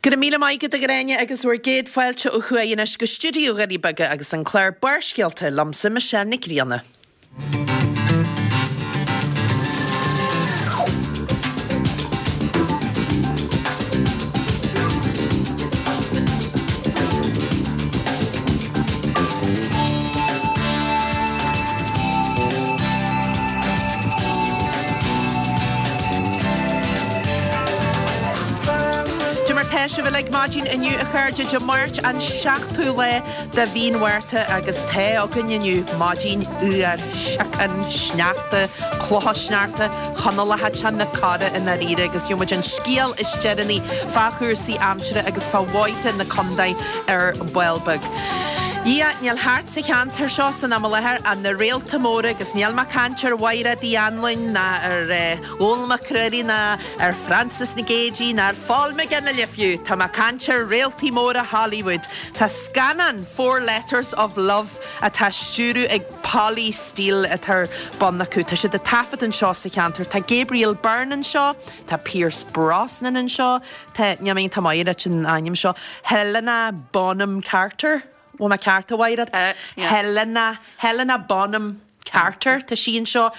Go raibh míle maith agat a Ghráinne agus bhur gcéad fáilte ó thuaidh anois go stiúideo Dhoirí Beaga agus an clár Barrscéalta liomsa Michelle Nic Grianna. Cad é mar tá sibh uilig maidin inniu a chairde, Dé Máirt an 7ú lá de mhí an Mhárta agus tá againn inniu maidin fhuar, síocán, sneachta, clocha sneachta, Conallacha te na cora i ndáiríre agus gheobhaidh muid an scéal is deireanaí fá chúrsaí aimsire agus fá bhóithre na contae ar ball beag. Dhia, níl thart sa cheantar seo san am i láthair ach na réalta móra agus níl mé ag caint ar Mhaighread Uí Anluain ná ar Dhónall Mac Ruairí ná ar Frances Nic Géadaigh ná ar Phól McGinley fiú, tá mé ag caint ar réaltaí móra Hollywood. Tá scannán Four Letters of Love atá á stiúradh ag Polly Steele atá ar bun acu. Tá siad ag taifead anseo sa cheantar. Tá Gabriel Byrne anseo, tá Pierce Brosnan anseo, tá, níl mé iontach maith leis an ainm seo, Helena Bonham Carter, bhfuil mé ceart a Mhaighread? Helena, Helena Bonham Carter, tá sí anseo.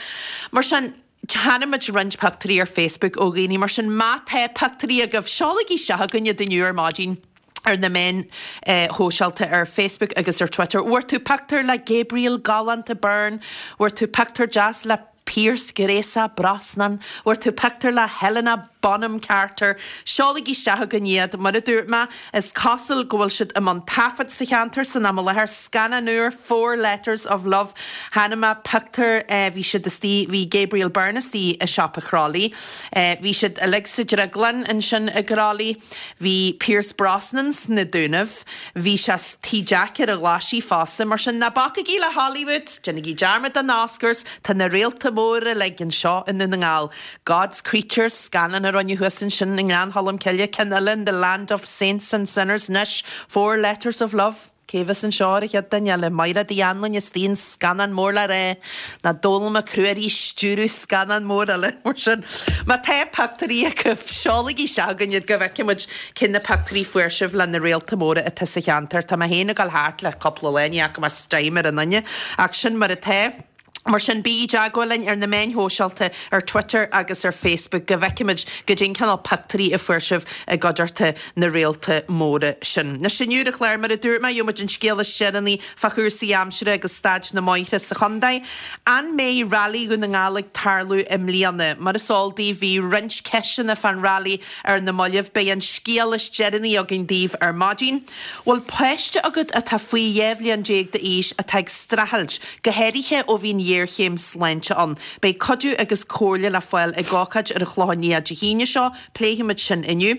Mar sin, Chonaic muid roinnt pictiúirí ar Facebook ó dhaoine, mar sin má tá pictiúirí agaibh, seolaigí isteach chugainn iad inniu ar maidin ar na meáin shóisialta, ar Facebook agus ar Twitter. Bhfuair tú pictiúr le Gabriel galánta Byrne? Bhfuair tú pictiúr deas le Pierce gréasach Brosnan? Bhfuair tú pictiúr le Helena Bonham Carter? Seolaigí isteach chugainn iad. Mar a dúirt mé, is cosúil go bhfuil siad i mbun taifead sa cheantar san am i láthair. Scannán úr, Four Letters of Love. Chonaic mé pictiúr, bhí siad istigh, bhí Gabriel Byrne istigh i siopa Chrolly. Bhí siad uilig sa drioglann ansin i gCrolly. Bhí Pierce Brosnan sna Dúnaibh. Bhí sé sa Tigh Jack ar an Ghlaisigh fosta. Mar sin, ná bacaigí le Hollywood, déanaigí dearmad den Oscars, tá na réalta móra uilig anseo i nDún na nGall. God's Creatures, scannán a rinneadh thuas ansin i nGleann Cholm Cille, ceann eile in The Land of Saints and Sinners, anois Four Letters of Love. Cé a bheas anseo ar an chéad duine eile? Maighread Uí Anluain istigh in scannán mór le rá, ná Dónall Mac Ruairí ag stiúradh scannán mór eile, mar sin. Má tá pictiúirí agaibh, seolaigí isteach chugainn iad go bhfeicfidh muid cé na pictiúirí fuair sibh le na réalta móra atá sa cheantar. Tá mé féin ag dul thart le cúpla lá, ní fhaca mé stime ar aon duine, ach sin mar atá. Mar sin, bígí i dteagmháil linn ar na meáin shóisialta, ar Twitter agus ar Facebook, go bhfeicfimid goidé an cineál pictiúirí a fuair sibh i gcuideachta na réalta móra sin. Anois inniu ar an chlár, mar a dúirt mé, gheobhaidh muid an scéal is deireanaí fá chúrsaí aimsire agus staid na mbóithre sa chontae. An mbeidh Railí Dhún na nGall ag tarlú i mbliana? Mar is eol daoibh, bhí roinnt ceisteanna fán railí ar na mallaibh. Beidh an scéal is deireanaí againn daoibh ar maidin. Bhfuil páiste agat atá faoi 12 bhliain d'aois atá ag streachailt, go háirithe ó bhí an ghéarchéim sláinte ann? Beidh cuidiú agus comhairle le fáil ag ócáid ar an Chlochán Liath Dé hAoine seo, pléifimid sin inniu.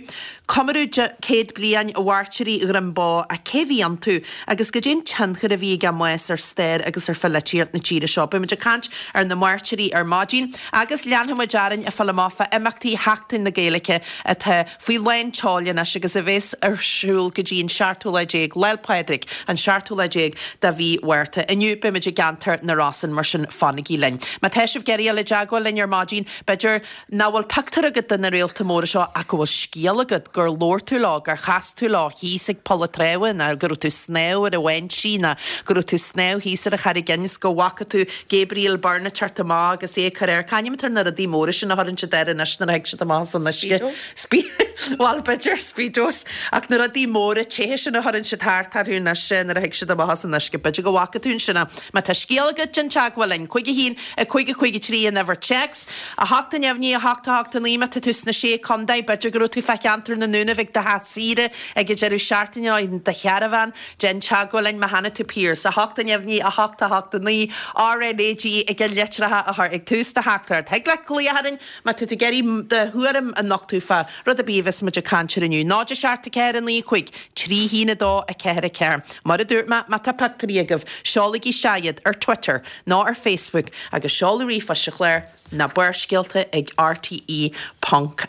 Comóradh 100 bliain Mhairtírí Dhroim Bó, ach cé a bhí iontu agus goidé an tionchar a bhí ag a mbás ar stair agus ar pholaitíocht na tíre seo? Beimid ag caint ar na mairtírí ar maidin agus leanfaimid orainn ag fáil amach fá imeachtaí Sheachtain na Gaeilge atá faoi lán tseoil anois agus a bheas ar siúl go dtí an seachtú lá déag, Lá'l Pádraig, an seachtú lá déag de mhí Mhárta. Inniu beimid i gceantar na Rosann, mar sin fanaigí linn. Má tá sibh ag iarraidh dul i dteagmháil linn ar maidin, b'fhéidir nach bhfuil pictiúr agat de na réalta móra seo ach go bhfuil scéal agat, gur labhair tú leo, gur chas tú leo thíos ag Poll an Treabha nó go raibh tú ag snámh ar an bháinsí nó go raibh tú ag snámh thíos ar an Charraig Fhinn is go bhfaca tú Gabriel Byrne ag teacht amach agus é ag cur air. C'ainm atá ar na rudaí móra sin a chuireann siad air anois nuair a thig siad amach as an uisce? Speedos? Bhuel, b'fhéidir, Speedos. Ach na rudaí móra te sin a chuireann siad thart orthu anois nuair a thig siad amach as an uisce. B'fhéidir go bhfaca tú ansin é. Má tá scéal agat, déan teagmháil linn. 5 1 5 5 3 an uimhir téacs. 8 neamhní 8 8 9 Má tá tú sna Sé Contae, b'fhéidir go raibh tú fá cheantar na nDúnaibh ag do theach saoire ag an deireadh seachtaine nó i do charbhán. Déan teagmháil linn má chonaic tú Pierce, 8 neamhní 8 8 9, RnaG ag an litreacha a chur ag tús do theachtaireacht. Thig leat glaoch orainn má tá tú ag iarraidh do thuairim a nochtadh fá rud ar bith a bheas muid ag caint air inniu. 0 7 4 9 5 3 1 2 4 4. Mar a dúirt mé, má tá pictiúirí agaibh, seolaigí isteach iad ar Twitter nó ar Facebook agus seoladh ríomhphoist sa chlár ná barrscéalta ag rte ponc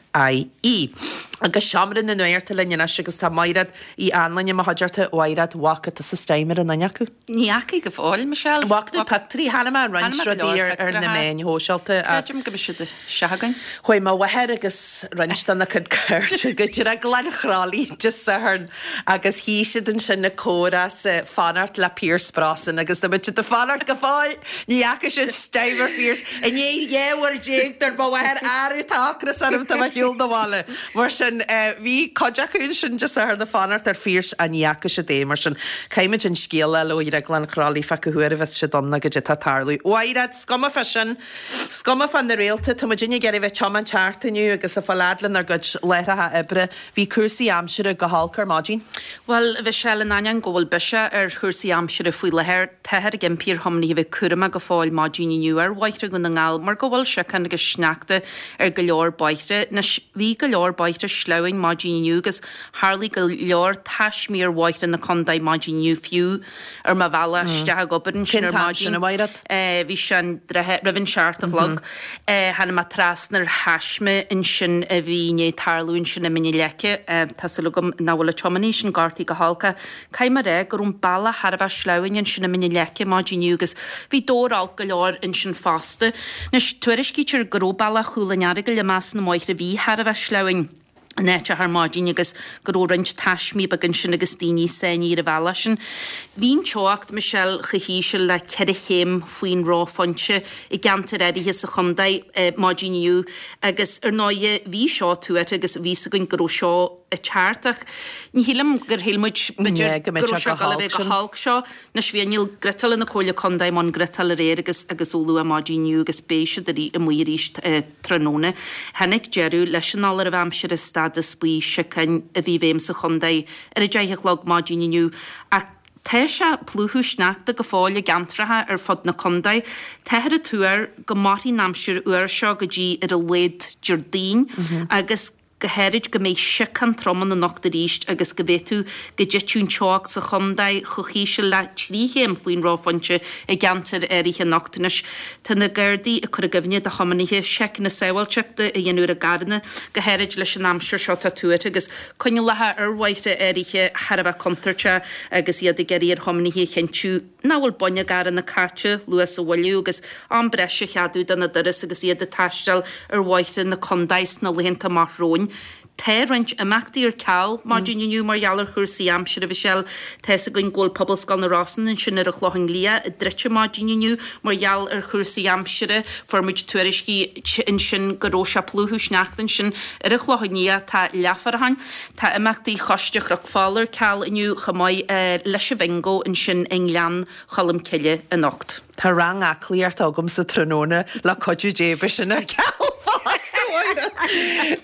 ie. Agus seo. Seomra na Nuachta linn anois agus tá Maighread Uí Anluain i mo chuideachta. A Mhaighread, bhfaca tusa Steimer an duine acu? Ní fhacaidh go fóill, Michelle. Bhfaca tú pictiúirí? Chonaic mé roinnt rudaí ar na meáin shóisialta. Creidim go mbeidh siad isteach againn. Chuaigh mo mháthair agus roinnt dena cuid cairde go Drioglann Chroithlí Dé Sathairn agus shuigh siad ansin ag comhrá 's ag fanacht le Pierce Brosnan agus tá muid ag fanacht go fóill! Ní fhaca siad Steimer Phearse. I ndiaidh 12 uair dúirt mo mháthair arú tá ocras orm tá mé ar shiúl na bhaile. Mar sin bhí cuid acu ansin Dé Sathairn ag fanacht ar Phearse ach ní fhaca siad é. Mar sin caithfimid an scéal a fháil ó Dhrioglann Chroithlí fá cá huair a bheas siad ann nó goidé atá ag tarlú. A Mhaighread, 's cuma fá sin. 's cuma fá na réalta, tá muidinne ag iarraidh bheith ag tiomáint thart inniu agus ag fáil fhad lenár gcuid láithreacha oibre. Bhí cúrsaí aimsire go holc ar maidin. Bhuel, a Mhichelle, in ainneoin go bhfuil biseach ar chúrsaí aimsire faoi láthair, táthar ag impí ar thiománaithe a bheith cúramach go fóill maidin inniu ar bhóithre Dhún na nGall mar go bhfuil siocán agus sneachta ar go leor bóithre. Anois, bhí go leor bóithre sleamhain maidin inniu agus tharlaigh go leor taismí ar bhóithre na contae maidin inniu fiú ar mo bhealach isteach ag obair ansin Cén ar t-am maidin. sin, a Mhaighread? Bhí sé an droichead roimh an seacht a chlog. Tháinig mé trasna ar thaisme ansin a bhí i ndiaidh tarlú ansin i Mín na Leice. Tá súil agam nach bhfuil an tiománaí sin gortaithe go holc ach caithfidh mé a rá go raibh an bealach thar a bheith sleamhain ansin i Mín na Leice maidin inniu agus bhí dobhar olc go leor ansin fosta. Anois, tuairiscítear go raibh bealach Chúil an Earagail i measc na mbóithre a bhí thar a bheith sleamhain. in áiteacha ar maidin agus go raibh roinnt taismí beaga ansin agus daoine sáinnithe ar an bhealach sin. Bhí an teocht, Michelle, chomh híseal le ceithre chéim faoin reophointe i gceantair áirithe sa chontae maidin inniu agus ar ndóighe bhí seo tuartha agus bhí fhios againn go raibh seo ag teacht ach ní shílim gur shíl muid b'fhéidir go go mbeadh raibh sé sé go ag dul a holc bheith go sin. holc seo. Anois bhí inneall griotála na Comhairle Contae i mbun griotáil aréir agus agus ó luath maidin inniu agus beidh siad amuigh arís tráthnóna. Tháinig deireadh leis an fholáireamh aimsire stádas buí siocáin a bhí i bhfeidhm sa chontae ar a 10 a chlog maidin inniu ach tá sé ag plúchadh sneachta go fóill i gceantracha ar fud na contae. Táthar ag tuar go mairfidh an aimsir fhuar seo go dtí ar a laghad Déardaoin agus go háirid go mbeidh siocán trom ann anocht arís agus go bhféadfadh go dtitfeadh an teocht sa chontae chomh híseal le 3 chéim faoin reophointe i gceantair áirithe anocht. Anois, tá na Gardaí ag cur i gcuimhne do thiománaithe seiceanna sábháilteachta a dhéanamh ar a gcarranna, go háirid leis an aimsir seo atá tuartha agus coinníollacha ar bhóithre áirithe thar a bheith contúirteach agus iad ag iarraidh ar thiománaithe a chinntiú nach bhfuil boinn a gcarranna caite, luas a mhoilliú agus am breise a cheadú do na dturas agus iad ag taisteal ar bhóithre na contae sna laethanta amach romhainn. Tá roinnt imeachtaí ar ceal maidin inniu mar gheall ar chúrsaí aimsire, a Mhichelle. Tá fhios againn go bhfuil Pobalscoil na Rosann ansin ar an Chlochán Liath druidte maidin inniu mar gheall ar chúrsaí aimsire. Fuair muid tuairiscí ansin go raibh sé ag plúchadh sneachta ansin ar an Chlochán Liath. Tá leathfhaireachán. Tá imeachtaí Choiste Chnoc Fola ar ceal inniu chomh maith leis an Bhingo ansin i nGleann Cholm Cille anocht. Tá rang aclaíochta agamsa tráthnóna, le cuidiú Dé beidh sin ar ceal fosta, a Mháire.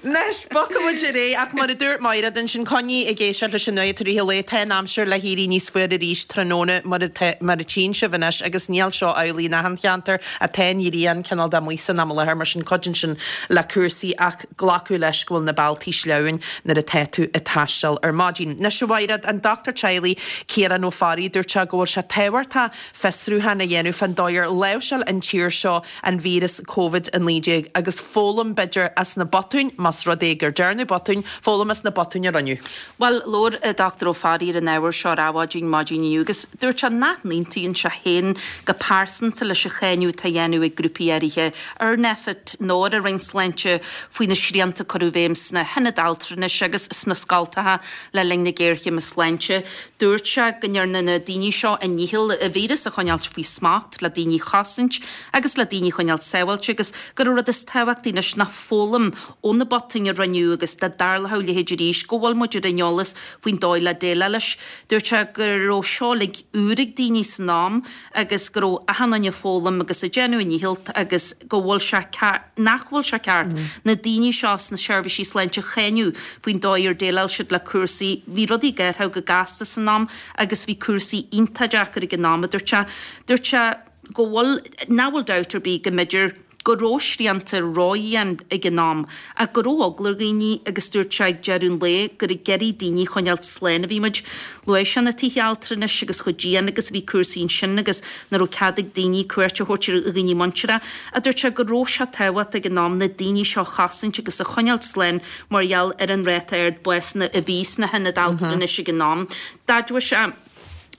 Anois, bogfaidh muid ar aghaidh, ach mar a dúirt Máiréad ansin, coinnigh ag éisteacht leis an nuacht i rith an lae, tá an aimsir le héirí níos fuaire arís tráthnóna mar mar a tchíonn sibh anois agus níl seo amhlaidh in achan cheantar ach tá an ghrian cineál de amuigh san am i láthair, mar sin cuidíonn sin le cúrsaí ach glacadh leis go bhfuil na bealtaí sleamhain nuair atá tú ag taisteal ar maidin. Anois, a Mhaighread, an dochtúir teaghlaigh, Ciarán Ó Fearraigh, dúirt sé go bhfuil sé tábhachtach fiosrúchán a dhéanamh fán dóigh ar láimhseáil an tír seo an víreas Covid-19 agus foghlaim, b'fhéidir, as na botúin, más rud é gur dearnadh botúin, foghlaim as na botúin a rinneadh. Bhuel, labhair an Dr Ó Fearraigh ar an ábhar seo ar Adhmhaidin maidin inniu agus dúirt sé nach n-aontaíonn sé féin go pearsanta leis an cháineadh atá á dhéanamh ag grúpaí áirithe ar Nphet nó ar an Roinn Sláinte faoi na srianta a cuireadh i bhfeidhm sna hionaid altranais agus sna scoltacha le linn na géarchéime sláinte. Dúirt sé go ndearna na daoine seo a ndícheall an víreas a choinneáilt faoi smacht le daoine a chosaint agus le daoine a choinneáilt sábháilte agus gur an rud is tábhachtaí anois ná foghlaim ó na botúin a rinneadh agus dá dtarlódh a leithéid arís go bhfuil muid ar an eolas faoin dóigh le déileáil leis. Dúirt sé go raibh seo uilig úr ag daoine san am agus go raibh achan duine ag foghlaim agus ag déanamh a ndícheall agus go bhfuil sé nach bhfuil sé ceart na daoine seo sna seirbhísí sláinte a cháineadh faoin dóigh ar dhéileáil siad le cúrsaí. Bhí rudaí ag athrú go gasta san am agus bhí cúrsaí iontach deacair ag an am, a dúirt sé. Dúirt sé go bhfuil, nach bhfuil dabht ar bith go mb'fhéidir. go raibh srianta ródhian ag an am ach go raibh eagla ar dhaoine agus dúirt sé ag deireadh an lae gur ag iarraidh daoine a choinneáilt slán a bhí muid. Luaigh sé na tithe altranais agus chomh dian agus a bhí cúrsaí ansin agus nach raibh cead ag daoine cuairt a thabhairt ar dhaoine muinteartha ach dúirt sé go raibh sé tábhachtach ag an am na daoine seo a chosaint agus a choinneáilt slán mar gheall ar an ráta ard básanna a bhí sna hionaid altranais ag an am. D'admhaigh sé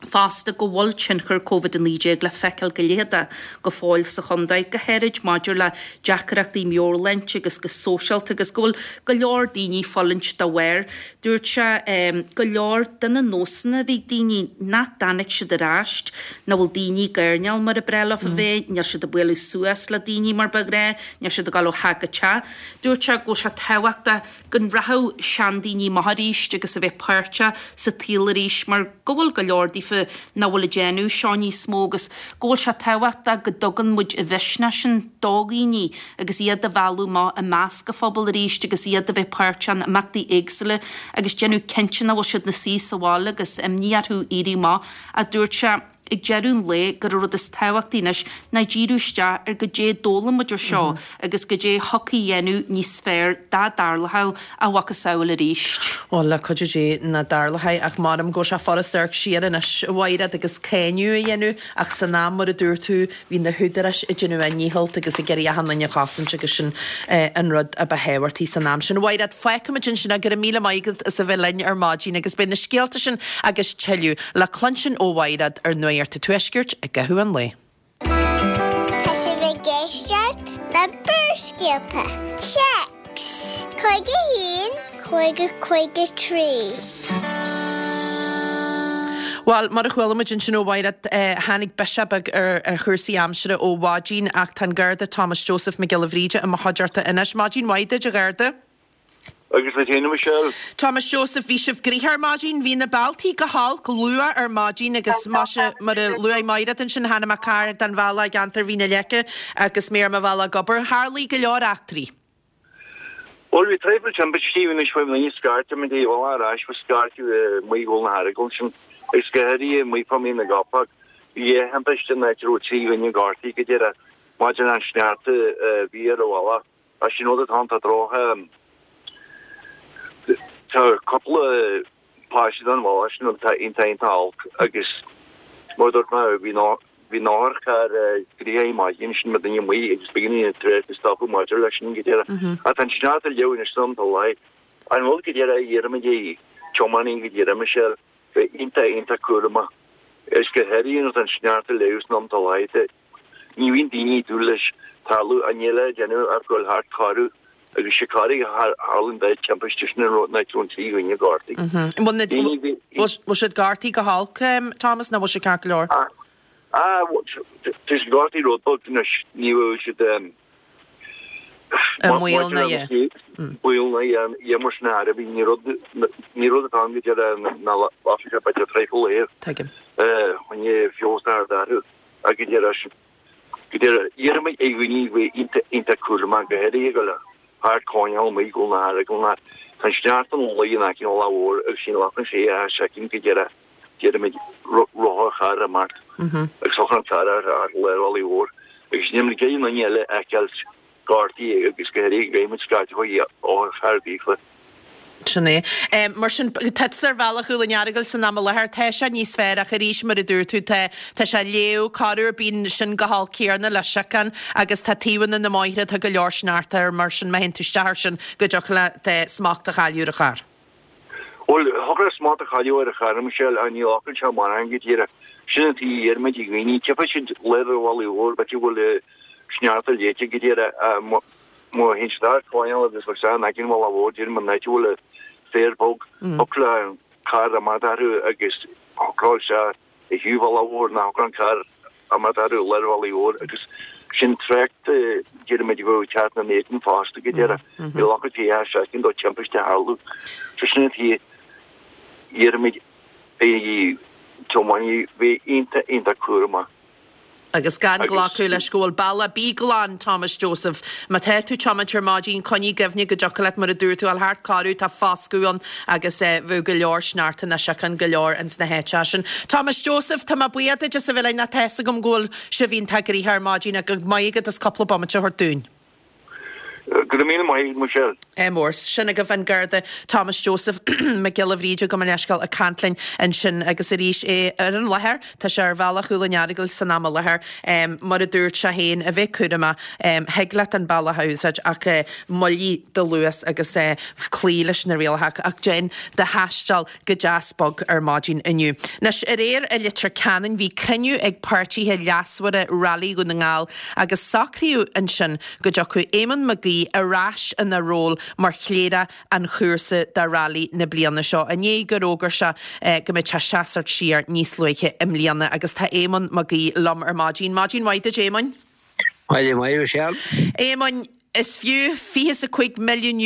fosta go bhfuil tionchar Covid-19 le feiceáil go leitheadach go fóill sa chontae, go háirid maidir le deacrachtaí meabhairshláinte agus go sóisialta agus go bhfuil go leor daoine ag fulaingt dá bharr. Dúirt sé go leor de na nósanna a bhí ag daoine nach dtáinig siad ar ais, nach bhfuil daoine ag airneál mar a ba bhreá leofa bheith, níl siad ag bualadh suas le daoine mar ba ghnáth, níl siad ag dul ó theach go teach. Dúirt sé go bhfuil sé tábhachtach go rachadh seandaoine amach arís agus a bheith páirteach sa tsaol arís mar go bhfuil go leor daofa nach bhfuil ag déanamh seo níos mó agus go bhfuil sé tábhachtach go dtugann muid an mhisneach sin do dhaoine agus iad a mhealladh amach i measc an phobail arís agus iad a bheith páirteach in imeachtaí éagsúla agus déanamh cinnte nach bhfuil siad ina suí sa bhaile agus imní orthu éirí amach, a dúirt sé. Ag deireadh an lae, gur an rud is tábhachtaí anois ná díriú isteach ar goidé a d'fhoghlaim muid ó seo agus goidé a thiocfaidh a dhéanamh níos fearr dá dtarlódh a mhacasamhail arís. Bhuel, le cuidiú Dé nach dtarlóidh, ach m'anam go bhfuil sé furast amharc siar anois, a Mhaighread, agus cáineadh a dhéanamh, ach san am, mar a dúirt tú, bhí na húdaráis ag déanamh a ndícheall agus ag iarraidh achan duine a chosaint agus sin an rud a ba thábhachtaí san am sin. A Mhaighread, fágfaimid ansin é, go raibh míle maith agat as a bheith linn ar maidin agus beidh na scéalta sin agus tuilleadh le cluinstin ó Mhaighread ar Nuacht an Tuaiscirt i gcaitheamh an lae. Tá sibh ag éisteacht le Barrscéalta. Téacs 51 50 53. Bhuel, mar a chuala muid ansin ó Mhaighread, tháinig biseach beag ar chúrsaí aimsire ó mhaidin ach tá an Garda Thomas Joseph Mac Giolla Bhríde i mo chuideachta anois. Maidin mhaith duit, a Gharda. Agus duit féin, a Michelle. Thomas Joseph, bhí sibh gnoitheach ar maidin. Bhí na bealtaí go holc luath ar maidin agus maise, mar a luaigh Maighread ansin, tháinig mé gar don bhealach i gceantar Mhín na Leice agus mé ar mo bhealach ag obair. Tharlaigh go leor eachtraí. Bhuel, bhí traidhfil timpistí, bhí anois faoi mhí scairteadh muid ar bhealach ar ais, bhí scairteadh i Maigh Dhún na hEaragail ansin agus go háirithe i Maigh fá Mín na gCopach. Bhí dhá thimpiste in áit a raibh 3 dhuine gortaithe go díreach maidir leis an sneachta a bhí ar an bhealach. Ach sin rud atá ann, tá droch, tá cúpla paiste den bhealach sin atá iontach iontach olc agus mar a dúirt mé bhí bhí an otharcharr gnoitheach ar maidin sin le duine amuigh agus b'éigean an trácht a stopadh maidir leis sin go díreach. Ach tá an sneachta ag leá anois san am atá lá. An rud go díreach a iarraimid ar tiománaí go díreach Michelle, bheith iontach iontach cúramach agus go háirithe nuair atá an sneachta ag leá san am atá lá. Ní bhíonn daoine ag dúil leis tarlú ach níl le déanamh ach goil thart corradh agus sé corraigh a tharlaíonn dá timpiste sin an rud nach raibh an trí dhuine gortaithe. Bhfuil siad gortaithe go holc, Thomas, nó bhfuil siad ceart go leor? Ah, tá siad gortaithe rud beag anois, ní bhfuil siad I mbaol na dhe. Baol na dhe mar sin a bhí ní rud ní rud atá ann go deireadh na lasfaidh sé b'fhéidir traidhfil é. Tuigim. Choinne feabhas a chur orthu. Ach go díreach sin, go díreach, iarraimid ar dhaoine a bheith iontach, iontach cúramach, go háirithe ag goil thart coirnéal amuigh go na hAragail ná tá an sneachta ina luí in aice an Bhealaigh Mhóir agus sin lachan sé a soicind go díreach, déarfaimid, rotharcharr imeacht agus thiocfadh an carr ar ar lár an Bhealaigh Mhóir agus níl muid ag iarraidh aon duine eile a fheiceáilt gortaithe agus go háirithe go gcaithfidh muid scaití otharcharr daofa. Sin é. Mar sin, tá tusa ar bhealach Dhún an Earagail san am i láthair, tá sé níos fearr ach arís, mar a dúirt tú, tá, tá sé ag leá, corruair bíonn sin go holc céarna le siocán agus tá taobhanna na mbóithre, tá go leor sneachta air, mar sin má théann tú isteach air sin go dtiocfadh leat smacht a chailleadh ar an charr. Bhuel, thiocfadh leat smacht a chailleadh ar an charr, Michelle, ach ní ghlacann sé mórán go díreach. Sin an tuige a iarraimid ar dhaoine, tchífidh siad lár an bhealaigh mhóir, b'fhéidir go bhfuil sneachta léite go díreach, Má théann siad thart coirnéal agus bheadh sé in aice an bhealaigh mhóir déarfainn an áit a bhfuil an féar bog, thiocfadh le an carr imeacht orthu agus shocródh sé ar thaobh an bhealaigh mhóir ná thiocfadh an carr imeacht orthu i lár an bhealaigh mhóir agus sin trácht déarfaimid a bheadh ag teacht ina éadan fosta go deireadh. Ní ghlacfadh sé ach soicind do timpiste a tharlú. So sin an tuige iarraimid ar thiománaithe bheith iontach iontach cúramach. Agus gan glacadh leis go bhfuil bealach Bí glan, Thomas Joseph. Má tá tú tiomáint ar maidin, coinnigh i gcuimhne go dtiocfadh leat, mar a dúirt tú, a ghabháil thart corradh, tá foscadh ann agus bheadh go leor sneachta ná síocháin go leor ins na háiteacha sin. Thomas Joseph, tá mé buíoch duit as a bheith linn ach tá fhios agam go bhfuil sibh iontach gnoitheach ar maidin ach go maith agat as cúpla bomaite a thabhairt dúinn. Go raibh míle maith agat, Michelle. Ádh mór. Sin agaibh an Garda Thomas Joseph Mac Giolla Bhríde, gabh mo leithscéal, ag caint linn ansin agus arís é ar an láthair, tá sé ar bhealach Chúil an Earagail san am i láthair, mar a dúirt sé féin, a bheith cúramach, thig leat an bealach a úsáid ach moilligh do luas agus cloígh leis na rialacha ach déan do thaisteal go deas bog ar maidin inniu. Anois, aréir i Leitir Ceanainn bhí cruinniú ag páirtithe leasmhara Railí Dhún na nGall agus socraíodh ansin go dtiocfadh Éamonn Mac Aoidh ar ais ina ról mar chléireach an chúrsa do Railí na bliana seo, i ndiaidh gur fhógair sé go mbeadh sé seasamh siar níos luaithe i mbliana agus tá Éamonn Mac Aoidh liom ar maidin. Maidin mhaith duit Éamoinn. Maidin mhaith, Michelle. Éamoinn, Is fiú €25 milliún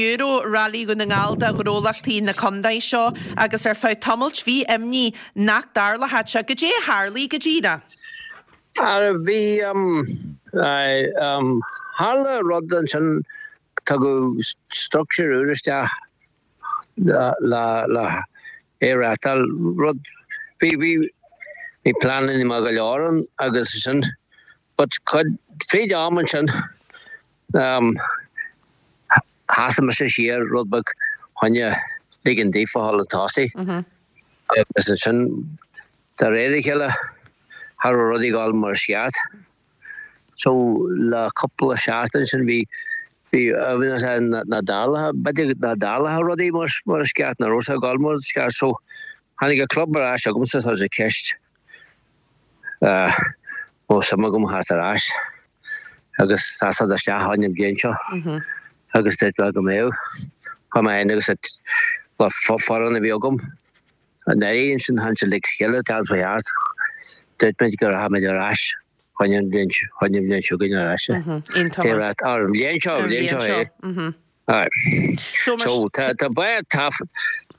Railí Dhún na nGall do ghnólachtaí na contae seo agus ar feadh tamailt bhí imní nach dtarlódh sé. Goidé a tharlaigh go díreach? Ara bhí, tharla rud ansin, tugadh structure úr isteach le le é a reáchtáil, rud, bhí, bhí, bhí pleananna maith go leor ann agus sin, But cuid, fríd am ansin, sheasaigh mise siar rud beag choinne ligean daofa a dhul chun tosaigh. Agus ansin, de réir a chéile, cha raibh rudaí ag dul mar is ceart. So, le cúpla seachtain sin bhí, bhí, bhí nach dtarlódh, b'fhéidir nach dtarlódh rudaí mar, mar is ceart, nach raibh sé ag dul mar is ceart. So, tháinig an club ar ais chugamsa, tá sé ceist. Raibh suim agam theacht ar ais agus seasamh isteach ann an bhliain seo agus dúirt mé go mbeadh. Chuaigh mé féin agus an foireann a bhí agam anuraidh ansin tháinig siad le chéile teacht faoi cheart. Dúirt muid go rachaimid ar ais chuig an bhliain seo chugainn ar ais. An bhliain seo, an bhliain seo é. Aye. So tá tá bád tá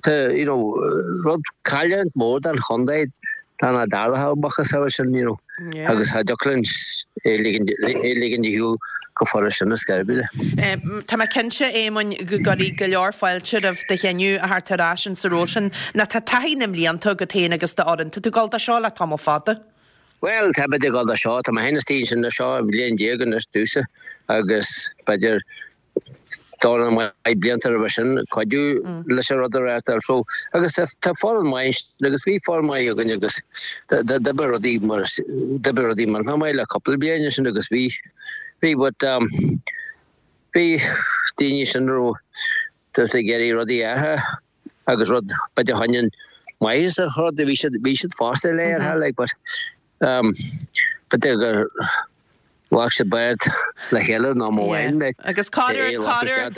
tá you know rud cailliúint mór don chontae dá nach dtarlódh macasamhail sin you know agus cha dtiocfadh linn é ligean é ligean de shiúl go furast sin ar scor ar bith. Tá mé cinnte, Éamoinn, go gcuirfidh go leor fáilte roimh do chinneadh a theacht ar ais in sa ról sin. Nó tá taithí na mblianta agat féin agus d'fhoireann. Tá tú ag dul do seo le tamall fada. Bhuel, tá muid ag dul do seo, tá mé féin istigh ansin do seo bhliain déag anois domhsa agus b'fhéidir dornán maith blianta roimhe sin cuidiú leis an rud a reáchtáil. So, agus tá foireann maith ansin agus bhí foireann maith againn agus d'oibrigh rudaí mar d'oibrigh rudaí millteanach maith le cúpla bliain ansin agus bhí bhí but um, bhí daoine sin a raibh just ag iarraidh rudaí a athrú agus rud b'fhéidir choinne an maitheas a rud bhí siad bhí siad fosta le ar like but um, b'fhéidir gur Ghlac siad bád le chéile nó mo mhain mé Agus corruair, corruair,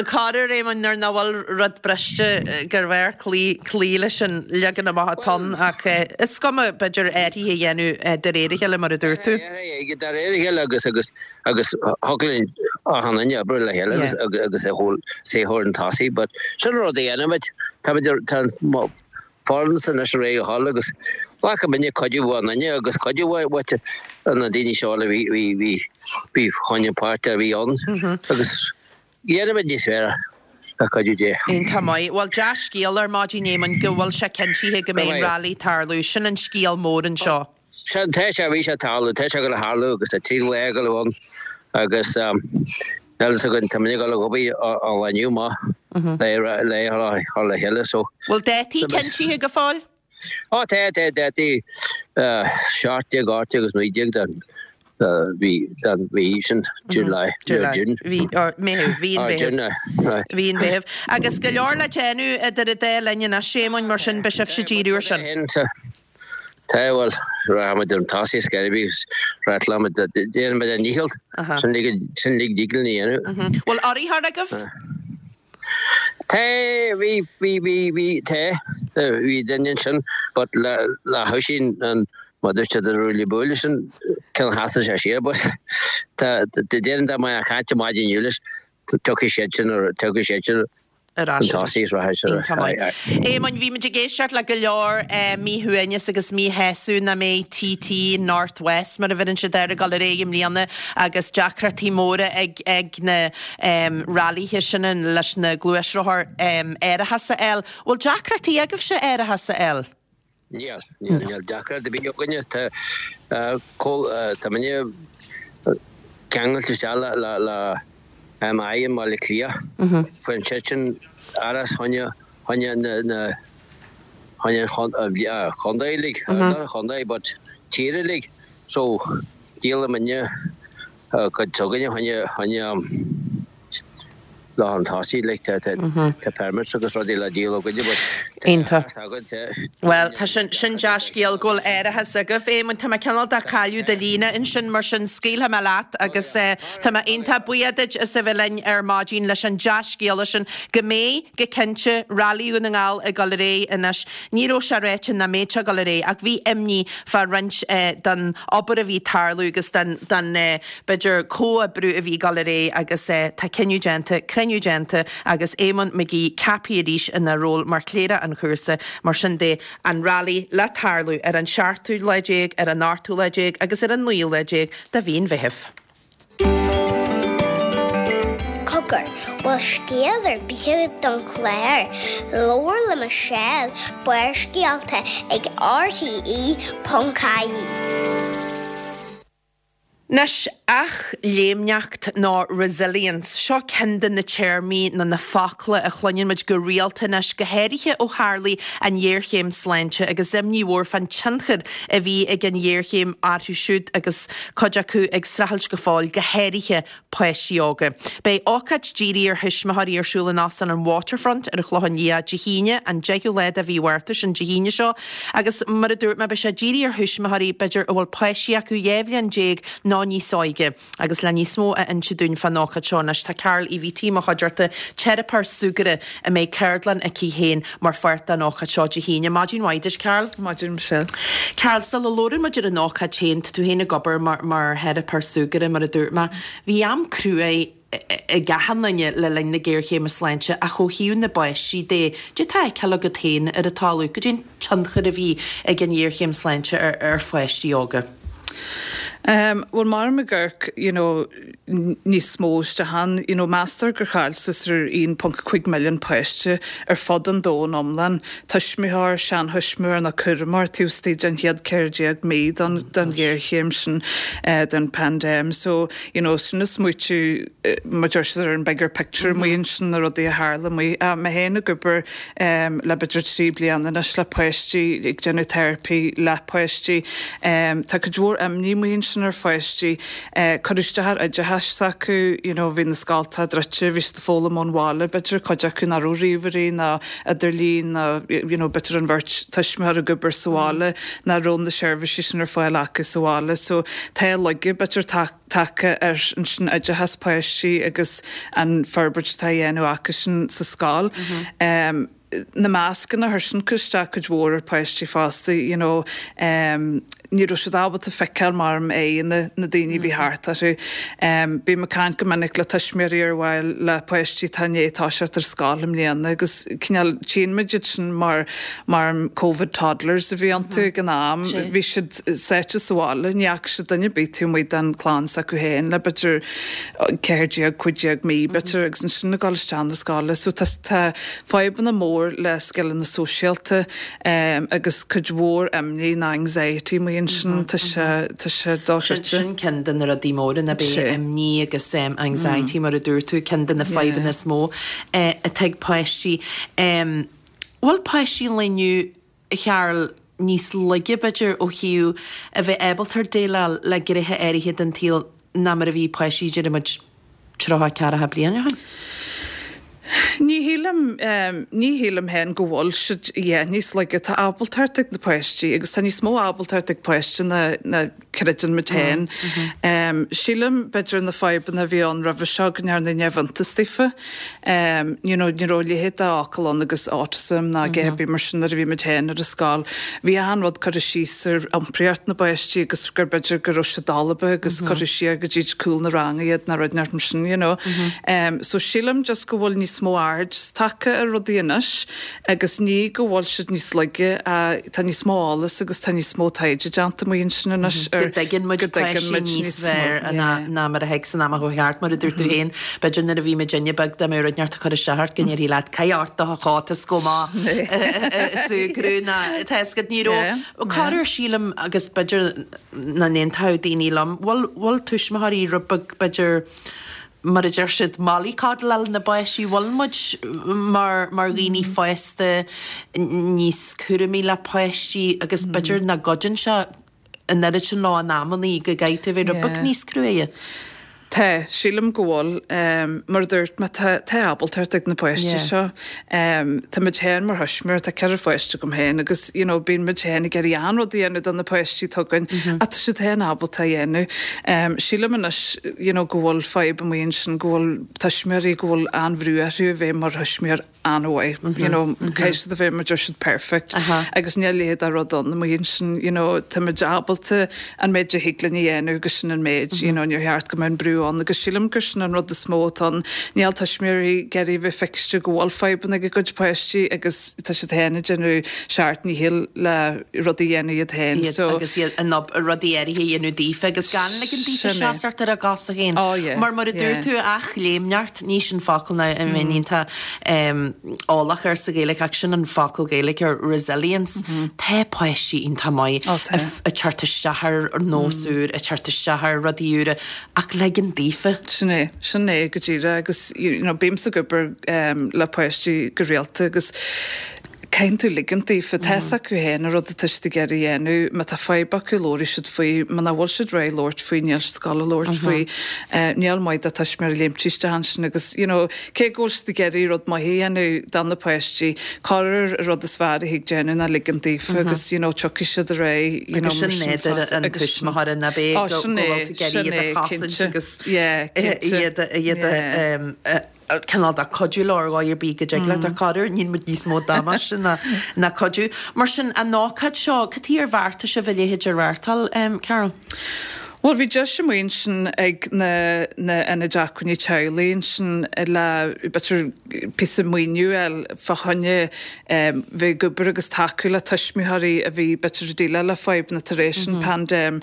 corruair, Éamoinn, nuair nach bhfuil rud briste gurbh fhearr cloí, cloí leis an leagan amach atá ann ach is cuma b'fhéidir athruithe a dhéanamh de réir a chéile mar a dúirt tú. De réir a chéile agus agus agus thig linn achan duine oibriú le chéile agus agus é chur chun tosaigh but sin rud a dhéanaimid táimid tá foireann anois réidh a dhul agus ghlac muidne cuidiú ó dhuine agus cuidiú uait na daoine seo a bhí bhí bhí bhí choinne páirt a bhí ann agus dhéanfaimid níos fearr le cuidiú Dé. Iontach maith. Bhuel dea-scéal ar maidin Éamoinn go bhfuil sé cinntithe go mbeidh an rally ag tarlú. Sin an scéal mór anseo. Sin, tá sé, bhí sé ag tarlú, tá sé ag dul a tharlú agus tá trí lá ag dul ann agus níl fhios againn, tá muid ag dul ag obair an lá inniu amach le le chur le chéile so. Bhfuil dátaí cinntithe go fóill? Ó tá, tá dátaí 17, 18 agus 19 den mhí, den mhí sin, July, June. Mhí, Meitheamh, mhí an Mheithimh. Mhí an Mheithimh. Agus go leor le déanamh idir an dá linn anois, Éamoinn, mar sin beidh sibhse ag díriú ar sin. Tá, bhuel, rachaimid chun tosaigh ar scor ar bith agus rachaimid, déanfaimid ár ndícheall, sin uilig, sin uilig a dtig linn a dhéanamh. Bhfuil urraitheoir agaibh? Tá, bhí, bhí, bhí, bhí, tá, bhí duine ansin but le, le hOisín an, mar dúirt siad an ruaille buaille sin, cineál sheasaigh sé siar but tá, déarfainn dá mbeinn ag caint ar maidin inniu leis, tiocfaidh siad sin, tiocfaidh siad sin. Ar ais arís. Iontach maith. Éamoinn, bhí muid ag éisteacht le go leor míshuaimhneas agus míshásamh nach mbeidh TT North West, mar a bheireann siad air, ag dul ar aghaidh i mbliana agus deacrachtaí móra ag ag na railithe sin leis na gluaisrothair árachas a fháil. Bhfuil deacrachtaí agaibhse árachas a fháil? Níl, níl, níl deacracht ar bith againne. Tá, tá muidne ceangailte isteach le, le, le MI i mBaile Átha Cliath. Faigheann siadsan árachas fá choinne, fá choinne na, na, fá choinne an chontae uilig, not an chontae but tír uilig. So, díolann muidne cuid s'againne fá choinne, fá choinne, lá chun tosaigh like tá tá permits agus rudaí le díol againne but tá Iontach. árachas againn tá Bhuel, tá sin, sin dea-scéal go bhfuil árachas agaibh. Éamonn, tá mé cineál de cailleadh do líne ansin, mar sin scaoilfidh mé leat agus tá mé iontach buíoch duit as a bheith linn ar maidin leis an dea-scéala sin go mbeidh, go cinnte, Railí Dhún na nGall ag dul ar aghaidh anois. Ní raibh sé ráite nach mbeadh sé ag dul ar aghaidh ach bhí imní fá roinnt den obair a bhí ag tarlú agus den, den, b'fhéidir, comhoibriú a bhí ag dul ar aghaidh agus tá cinneadh déanta, cruinniú déanta agus Éamonn McGee ceaptha arís ina ról mar chléireach an chúrsa. Mar sin de, an Railí le tarlú ar an seachtú lá déag, ar an ochtú lá déag agus ar an naoú lá déag de mhí an Mheithimh. Cogar, bhfuil scéal ar bith agat don chlár? Labhair le Michelle, Barrscéalta ag RTE.ie. Anois, athléimneacht nó resilience, seo ceann de na téarmaí nó na focla a chluineann muid go rialta anois, go háirithe ó tharlaigh an ghéarchéim sláinte agus imní mhór fán tionchar a bhí ag an ghéarchéim orthu siúd agus cuid acu ag streachailt go fóill, go háirithe páistí óga. Beidh ócáid dírithe ar thuismitheoirí ar siúl in Óstán an Waterfront ar an Chlochán Liath Dé hAoine, an 10ú lá de mhí Mhárta, sin Dé hAoine seo, agus mar a dúirt mé, beidh sé dírithe ar thuismitheoirí, b'fhéidir, a bhfuil páistí acu 12 bhliain nó níos óige. Agus le níos mó a inse dúinn fán ócáid seo anois, tá Carol Uí Bhítí i mo chuideachta, teiripeoir súgartha a mbeidh ceardlann aici féin mar pháirt den ócáid seo Dé hAoine. Maidin mhaith duit, Carol. Maidin Michelle. Carol, sula labhrann muid ar an ócáid féin, tá tú féin ag obair mar mar theiripeoir súgartha, mar a dúirt mé. Bhí am cruaidh ag achan duine le linn na géarchéime sláinte ach ó thaobh na bpáistí de, cad é atá á fheiceáil agat féin ar an talamh, cad é an tionchar a bhí ag an ghéarchéim sláinte ar ar pháistí óga? Bhuel, mar ag amharc, you know, níos mó isteach ann, you know, meastar gur chaill suas ar 1.5 milliún páiste ar fud an domhain iomlán, tuismitheoir, seanthuismitheoir nó cúramóir taobh istigh den chéad 14 mí den den ghéarchéim sin, den paindéim. So, you know, sin ag smaoitiú, mar deir siad ar an bigger picture amuigh ansin, na rudaí a tharla amuigh. Mé féin ag obair le b'fhéidir 3 bliana anois le páistí, ag déanamh teiripí le páistí. Tá cuid mhór imní amuigh ansin ar pháistí. Cuireadh isteach ar oideachas s'acu, you know, bhí na scoltacha druidte, bhí siad ag foghlaim ón bhaile, b'fhéidir cuid acu nach raibh ríomhairí ná idirlíon ná you know b'fhéidir an bheirt tuismitheoir ag obair sa bhaile, nach raibh na seirbhísí sin ar fáil acu sa bhaile. So tá laige b'fhéidir tagtha ar ansin oideachas páistí agus an forbairt atá á dhéanamh acusan sa scoil. Na mascanna, chuir sin isteach cuid mhór ar pháistí fosta, you know ní raibh siad ábalta feiceáil mar aghaidheanna na daoine a bhí thart orthu. Bím ag caint go minic le tuismitheoirí ar mhaith le páistí atá i ndiaidh toiseacht ar scoil i mbliana agus cineál tchíonn muid iad sin mar mar Covid toddlers a bhí iontu ag an am. Bhí siad sáite sa bhaile, ní fhaca siad duine ar bith taobh amuigh den chlann s'acu féin le b'fhéidir 14, 15 mí b'fhéidir agus ansin ag dul isteach na scoile. So tá tá fadhbanna mór le scileanna sóisialta agus cuid mhór imní ná anxiety amuigh ansin. Tá sé tá sé dochreidte. Sin ceann de na rudaí móra ná b'é imní agus anxiety mar a dúirt tú, ceann de na fadhbanna is mó atá ag páistí. Bhfuil páistí an lae inniu, a Charol, níos laige, b'fhéidir, ó thaobh a bheith ábalta déileáil le gnéithe áirithe den tsaol ná mar a bhí páistí, déarfaidh muid, 30, 40 bliain ó shin? Ní shílim, ní shílim féin go bhfuil siad, yeah, níos laige. Tá ábaltacht ag na páistí agus tá níos mó ábaltacht ag páiste ná, ná. creideann muid féin. Sílim, b'fhéidir, na fadhbanna a bhí ann roimhe seo go ndearnadh neamhiontas daofa. You know, ní raibh a leithéid de fhocal ann agus autism ná a dhath ar bith mar sin nuair a bhí muid féin ar an scoil. Bhí achan rud curtha síos ar iompraíocht na bpáistí agus gur b'fhéidir go raibh siad dalba agus curtha siar go dtí cúl na ranga iad ná rud inteacht mar sin, you know. So sílim just go bhfuil níos mó aird tagtha ar rudaí anois Agus ní go bhfuil siad níos laige, tá níos mó eolas agus tá níos mó taighde déanta amuigh ansin anois ar. Go dtuigeann muid páistí níos fearr ná mar a thuig san am a chuaigh thart, mar a dúirt tú féin, b'fhéidir nuair a bhí muidinne beag dá mbeadh rud inteacht ag cur isteach ort go ndéarfaí leat caith ort do chóta 's gabh amach ag súgradh ná tá a fhios agat ní raibh corruair sílim agus b'fhéidir nach n-aontódh daoine liom, bhfuil bhfuil tuismitheoirí rud beag b'fhéidir mar a deir siad, mollycoddle-áil na bpáistí, bhfuil muid mar mar dhaoine fásta níos cúramaí le páistí agus b'fhéidir nach gcuidíonn sé an oiread sin leo in amannaí go gcaithfidh tú a bheith rud beag níos cruaidhe. Tá, sílim go bhfuil. Mar a dúirt mé, tá tá ábaltacht ag na páistí seo. Tá muid féin mar thuismitheoir, tá ceithre pháiste agam féin agus you know bíonn muid féin ag iarraidh achan rud a dhéanamh do na páistí atá againn ach tá siad féin ábalta a dhéanamh. Sílim anois you know go bhfuil fadhb amuigh ansin go bhfuil tuismitheoirí go bhfuil an-bhrú orthu a bheith mar thuismitheoir an-mhaith you know caithfidh siad a bheith mar deir siad perfect agus níl a leithéid de rud ann amuigh ansin you know tá muid ábalta an méid a thig linn a dhéanamh agus sin an méid you know níor cheart go mbeadh an brú ann agus sílim gur sin an rud is mó atá ann níl tuismitheoirí ag iarraidh a bheith feiciste go bhfuil fadhbanna ag a gcuid páistí agus tá siad féin ag déanamh seacht ndícheall le rudaí a dhéanamh iad féin so. Agus iad in ann rudaí áirithe a dhéanamh daofa agus gan ligean daofa seasamh ar a gcosa féin. Oh yeah. Mar mar a dúirt tú, athléimneacht, ní sin focal ná a mbeinn iontach eolach air sa Ghaeilge ach sin an focal Gaeilge ar resilience. Tá páistí iontach maith ag teacht isteach ar nós úr, ag teacht isteach ar rudaí úra ach ligean daofa. Sin é, sin é go díreach agus you know bímse ag obair le páistí go rialta agus Caitheann tú ligint daofa. Tá fhios acu féin an rud atá siad ag iarraidh a dhéanamh. Má tá fadhb acu, labhróidh siad faoi. Muna bhfuil siad réidh labhairt faoi, níl siad ag gabháil a labhairt faoi. Níl maith do tuismitheoir léimt isteach ansin agus, you know, cé go bhfuil siad ag iarraidh rud maith a dhéanamh do na páistí, corruair an rud is fearr a thig déanamh ná ligint daofa agus, you know, tiocfaidh siad ar aghaidh, you know, mar sin Agus sin nádúr an tuismitheora, nach é, go bhfuil tú ag iarraidh iad a chosaint agus iad a, cineál de cuidiú leo ar dhóigh ar bith go dtig leat ach corruair níonn muid níos mó damáiste ná ná cuidiú. Mar sin, an ócáid seo, cad chuige ar bheartaigh sibh a leithéid a reáchtáil, Carol? Bhuel, bhí deis amuigh ansin ag na na ionaid acmhainní teaghlaigh ansin le b'fhéidir píosa maoiniú a fháil fá choinne bheith ag obair agus tacú le tuismitheoirí a bhí b'fhéidir ag déileáil le fadhbanna tar éis an paindéim.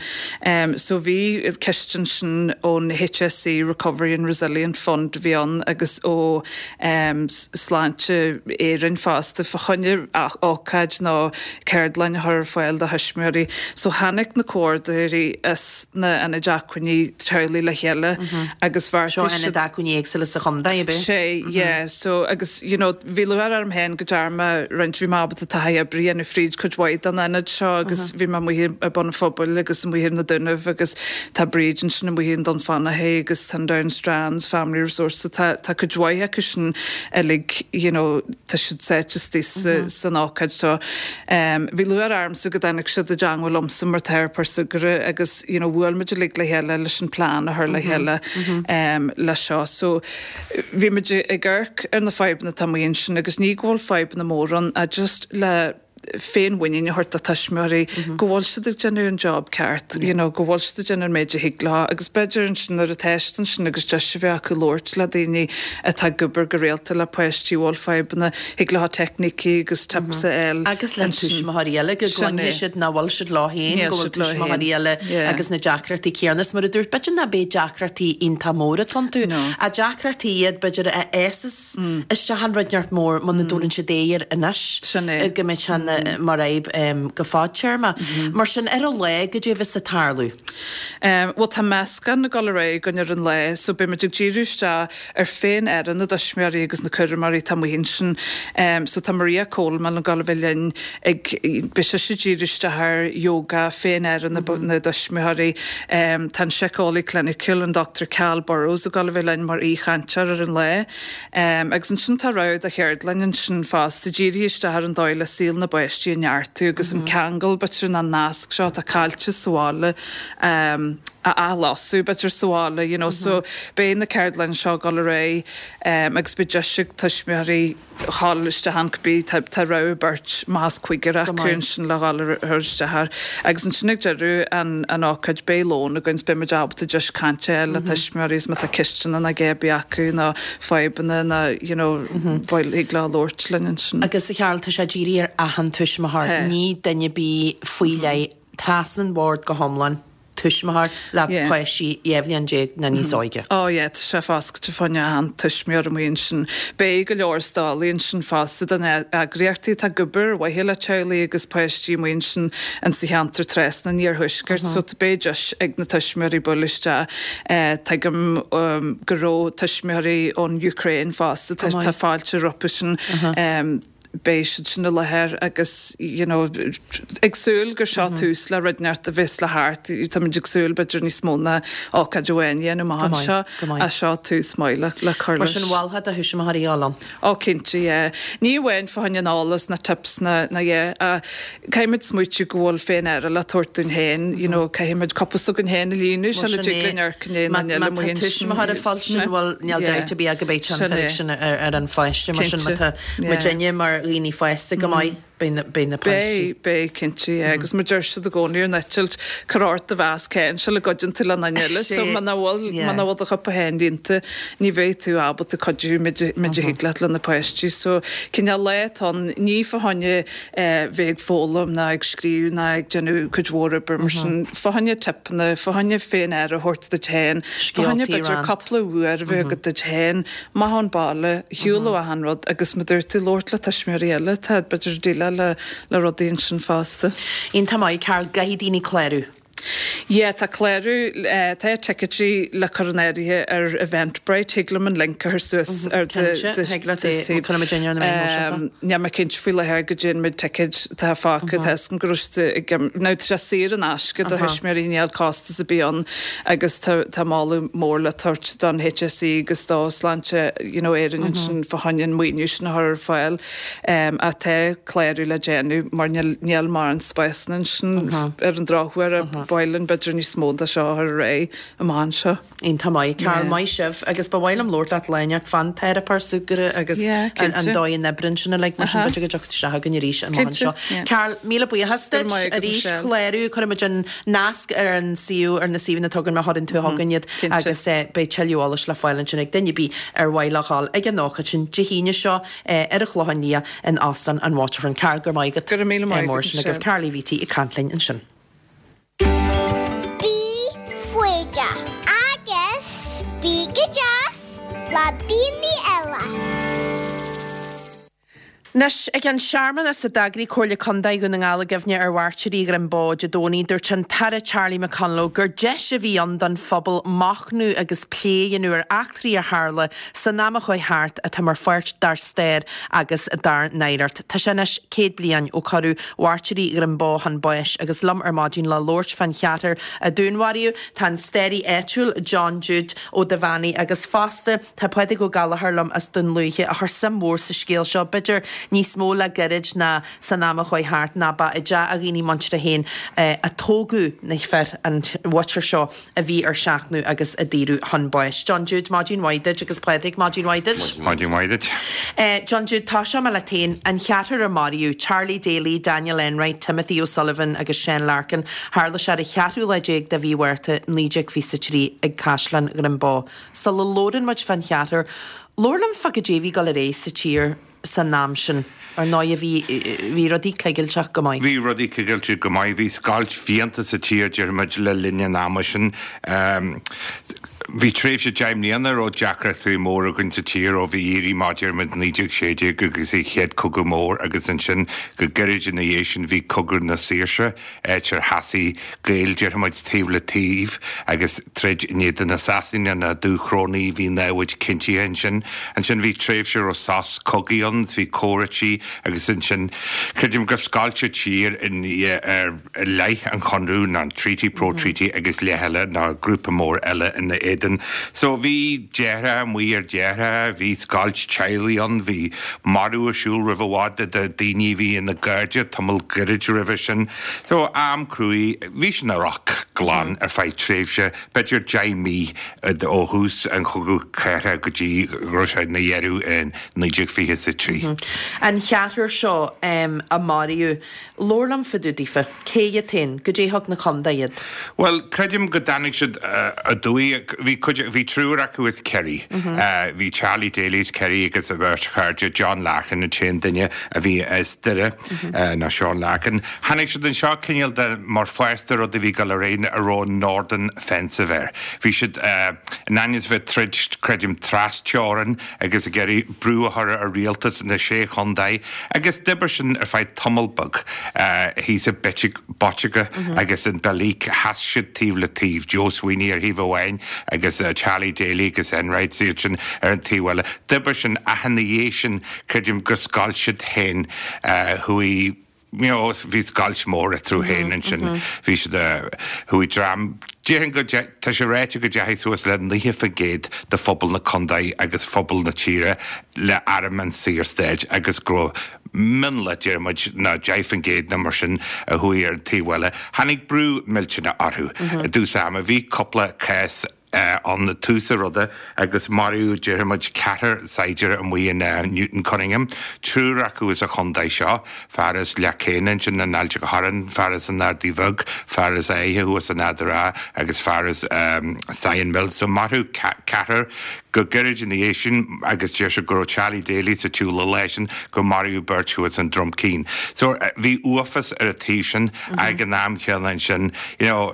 So bhí ciste ansin ón HSE Recovery and Resilient Fund a bhí ann agus ó Sláinte Éireann fosta fá choinne ócáid nó ceardlann a chur ar fáil do thuismitheoirí. So tháinig na comhordaitheoirí as na ionaid acmhainní teaghlaigh le chéile agus bheartaigh siad. Seo ionaid acmhainní éagsúla sa chontae, ab ea? Sea, yeah. So agus you know Bhí lúcháir orm féin go ndearna mé roinnt, bhí mé ábalta taithí oibre a dhéanamh fríd cuid mhaith den ionad seo agus bhí mé amuigh i Bun an Phobail agus amuigh ar na Dúnaibh agus tá Bríd ansin amuigh i nDún Fionnachaidh agus tá an Down Strands Family Resource so tá tá cuid mhaith acu sin uilig you know tá siad sáite istigh sa san ócáid so bhí lúcháir ormsa go dtáinig siad i dteangmháil liomsa mar teiripeoir súgartha agus you know bhuail muid uilig le chéile leis an plean a chur le chéile le seo so Bhí muid ag amharc ar na fadhbanna atá amuigh ansin agus ní go bhfuil fadhbanna móra ann ach just le féinmhuinín a thabhairt do tuismitheoirí go bhfuil siad ag déanamh an job ceart, you know, go bhfuil siad ag déanamh an méid a thig leo agus b'fhéidir ansin nuair atá siad ansin agus deis a bheith acu labhairt le daoine atá ag obair go rialta le páistí a bhfuil fadhbanna, thig leo teicnící agus tips a fháil Agus le tuismitheoirí eile go gcluinfidh siad nach bhfuil siad leo féin, go bhfuil tuismitheoirí eile agus na deacrachtaí céanna. Is mar a dúirt, b'fhéidir nach b'é deacrachtaí iontach móra atá iontu, ach deacrachtaí iad b'fhéidir a fhásas isteach in rud inteacht mór muna dtabharann siad aghaidh air anois, go mbeidh sé mar fhadhb go fadtéarma. Mar sin, ar an lá, goidé a bheas ag tarlú? Bhuel, tá meascán ag dul ar aghaidh againn ar an lá, so beidh muid ag díriú isteach ar féin-aire na dtuismitheoirí agus na cúramóirí atá amuigh ansin. So tá Maria Coleman ag dul a bheith linn ag, beidh sise ag díriú isteach ar yoga, féin-aire na dtuismitheoirí. Tá an síceolaí cliniciúil, an Dr Cal Burrows ag dul a bheith linn mar aoichainteoir ar an lá. Agus ansin tá rogha de cheardlann ansin fosta, dírithe isteach ar an dóigh le saol na bpáistí. páistí a neartú agus an ceangal b'fhéidir an nasc seo atá caillte sa bhaile a athlasadh b'fhéidir sa bhaile you know so beidh na ceardlanna seo ag dul ar aghaidh agus beidh deis ag tuismitheoirí dhul isteach ann cibé, tá rogha beirt, más cúigear acu ansin le dhul ar isteach air. Agus ansin ag deireadh an an ócáid beidh lón againn 's beidh muid ábalta deis cainte a fháil le tuismitheoirí is má tá ceisteanna nó a dhath ar bith acu nó fadhbanna nó you know bhuel thig leo labhairt linn ansin. Agus a Charol, tá sé dírithe ar achan tuismitheoir, ní duine ar bith faoi leith, trasna an bhord go hiomlán. tuismitheoir le páistí 12 bhliain nó níos óige. Ó yeah, tá sé foscailte fá choinne achan tuismitheoir amuigh ansin. Beidh go leor stallaí ansin fosta do na eagraíochtaí atá ag obair ar mhaithe le teaghlaigh agus páistí amuigh ansin in sa cheantar trasna an iarthuaiscirt so beidh deis ag na tuismitheoirí bualadh isteach. Tuigim go raibh tuismitheoirí ón Ukraine fosta, tá fáilte rompu sin. beidh siad sin i láthair agus you know ag súil gur seo tús le rud inteacht a bheas le theacht, táimid ag súil b'fhéidir níos mó ná ócáid amháin a dhéanamh amach anseo ach seo tús maith le le cur leis. Mar sin mholfá do thuismitheoirí a dhul ann? Ó cinnte yeah. Ní amháin fá choinne an eolas na tips na na yeah ach caithfimid smaoitiú go bhfuil féin-aire le tabhairt dúinn féin you know caithfimid cupa s'againn féin a líonadh sula dtig linn amharc i ndiaidh an duine eile amuigh ansin. Má tá tuismitheoir ag fáil sin bhuel níl dabht ar bith ach go mbeidh tionchar aige sin ar an pháiste mar sin má tá muidinne mar dhaoine fásta go maith, beidh na páistí. Beidh, beidh, cinnte, yeah. Agus mar deir siad i gcónaí ar an eitilt, cuir ort do mhasc féin sula gcuidíonn tú le duine eile. So muna bhfuil, muna bhfuil do chupa féin líonta, ní bheidh tú ábalta cuidiú méid a thig leat le na páistí. So cineál lá atá ann, ní fá choinne bheith ag foghlaim ná ag scríobh ná ag déanamh cuid mhór oibre mar sin, fá choinne tipeanna, fá choinne féin-aire a thabhairt duit féin, fá choinne b'fhéidir cúpla uair a bheith agat duit féin. Amach ón baile, ar shiúl ó achan rud agus mar dúirt tú, labhairt le tuismitheoirí eile atá b'fhéidir ag déileáil le le rudaí ansin fosta. Iontach maith, Carol, gcaithfidh daoine clárú? Yeah, tá clárú, tá ticéidí le cur in áirithe ar Eventbrite, thig liom an link a chur suas ar do Cinnte, thig leat é, cuirfidh muid ar na meáin shóisialta. Níl mé cinnte faoi láthair goidé an méid ticéid atá fágtha, tá 'fhios agam go raibh siad ag, now tá sé saor in aisce do thuismitheoirí, níl costas ar bith ann. Agus tá tá moladh mór le tabhairt don HSE agus do Sláinte you know Éireann ansin fá choinne an maoiniú sin a chur ar fáil. Ach tá clárú le déanamh mar níl níl mórán spásanna ansin ar an drochuair ba mhaith linn b'fhéidir níos mó de seo a chur ar aghaidh amach anseo. Iontach maith. Carol, maith sibh agus ba mhaith liom labhairt leat lá inteacht fán teiripeoir súgartha agus an dóigh a n-oibríonn sin uilig mar sin b'fhéidir go dtiocfaidh isteach againn arís amach anseo. Carol, míle buíochas duit arís. Clárú, cuirfimid an nasc ar an suíomh, ar na suíomhanna atá againn má chuireann tú chugainn iad agus beidh tuilleadh eolais le fáil ansin ag duine ar bith ar mhaith leo dhul ag an ócáid sin Dé hAoine seo ar an Chlochán Liath in Óstán an Waterfront. Carol, go raibh maith agat. Go raibh míle maith agat, Sin agaibh Carol Uí Bhíty ag caint linn ansin. Bí foighdeach agus bí go deas le daoine eile. Anois, ag an searmanas a d'eagraigh Comhairle Contae Dhún na nGall i gcuimhne ar mhairtírí Dhroim Bó Dé Domhnaigh, dúirt an tAire Charlie McConalogue gur deis a bhí ann don phobal machnamh agus plé a dhéanamh ar eachtraí a tharla san am a chuaigh thart atá mar pháirt dár stair agus dár n-oidhreacht. Tá sé anois 100 bliain ó cuireadh mairtírí Dhroim Bó chun báis agus liom ar maidin le labhairt fán cheathrar a dúnmharaíodh tá an staraí áitiúil John Jude Ó Duibheannaigh agus fosta Tá Pádraig Ó Gallchóir liom as Dún Lúiche a chuir suim mhór sa scéal seo, b'fhéidir níos mó le gairid ná san am a chuaigh thart, ná ba i dteach a dhaoine muinteartha féin a tógadh na fir, an mhuintir seo a bhí ar seachnadh agus a daoradh chun báis. John Jude, maidin mhaith duit agus Pádraig, maidin mhaith duit. Maidin mhaith duit. John Jude, tosóidh mé leat féin. An cheathrar a maraíodh, Charlie Daly, Daniel Enright, Timothy O'Sullivan agus Seán Larkin, tharla sé ar an cheathrú lá déag de mhí Mhárta 1923 ag Caisleán Dhroim Bó. Sula labhrann muid fán cheathrar, labhair liom fá goidé a bhí ag dul ar aghaidh sa tír san am sin. Ar ndóigh bhí, bhí rudaí coigilteach go maith. Bhí rudaí coigilteach go maith. Bhí scoilt fiánta sa tír, déarfaimid, le linn an ama sin. Bhí tréimhse 10 mbliana a raibh deacrachtaí móra againn sa tír ó bhí éirí amach, déarfaimid, 1916 agus an Chéad Cogadh Mór agus ansin go gairid ina dhiaidh sin bhí Cogadh na Saoirse. áit ar sheasaigh Gaeil, déarfaimid, taobh le taobh agus troid in éadan na Sasanaigh, na Dúchrónaigh, bhí námhaid cinntithe ansin. Ansin bhí tréimhse a raibh sos cogaidh ann, bhí comhráití agus ansin creidim gur scoilt an tír in ar leith an Chonradh, nó an Treaty, Pro-Treaty agus leith eile, nó grúpa mór eile ina éadan. éadan. So bhí deartháir amuigh ar dheartháir, bhí scoilt teaghlaigh ann, bhí marú ar siúl roimh i bhfad de daoine a bhí ina gcairde tamall gairid roimhe sin. So am cruaidh, bhí sin ina olc glan ar feadh tréimhse b'fhéidir 10 mí ó thús an Chogadh Cathartha go dtí go raibh sé ina dheireadh in 1923. An cheathrar seo a maraíodh, labhair liom fá dtaobh daofa. Cé hiad féin? Goidé thug na contae iad? Bhuel, creidim go dtáinig siad aduaidh. Bhí cuid, bhí triúr acu as Kerry. Bhí Charlie Daly as Kerry agus a bheirt chairde, John Larkin an t-aon duine a bhí as Doire, nó Seán Larkin. Tháinig siad anseo cineál de mar pháirt de rud a bhí ag dul ar aghaidh a raibh Northern Offensive air. Bhí siad in ainm is a bheith ag troid, creidim, tras-teorainn agus ag iarraidh brú a chur ar rialtas na Sé Chontae agus d'oibir sin ar feadh tamall beag thíos i Botica agus in Belleek. Sheas siad taobh le taobh, Joe Sweeney ar thaobh amháin agus Charlie Daly agus Enright iad sin ar an taobh eile. D'oibir sin ach ina dhiaidh sin, creidim gur scoilt siad féin, chuaigh, you know, bhí scoilt mór eatarthu féin ansin, bhí siad, chuaigh dream, déarfainn go, tá sé ráite go dteachaigh suas le 90% de phobal na contae agus phobal na tíre le arm an Saorstáit agus go raibh mionlach, deir muid, ná 10% nó mar sin a chuaigh ar an taobh eile. Tháinig brú millteanach orthu i dtús ama, bhí cúpla cás, ann i dtús an ruda agus maraíodh, déarfaidh muid, ceathrar saighdiúir amuigh in Newton Cunningham, triúr acu as an chontae seo, fear as Leac Céine ansin in Ailt an Chorráin, fear as an Ardaidh Bheag, fear as Áithe thuas in Ard an Rátha agus fear as Sion Mills. So maraíodh ceathrar go gairid ina dhiaidh sin agus deir siad go raibh Charlie Daly sa tsiúl an lá sin gur maraíodh beirt thuas in Drumkeen. So bhí uafás ar an taobh sin ag an am chéanna ansin, you know,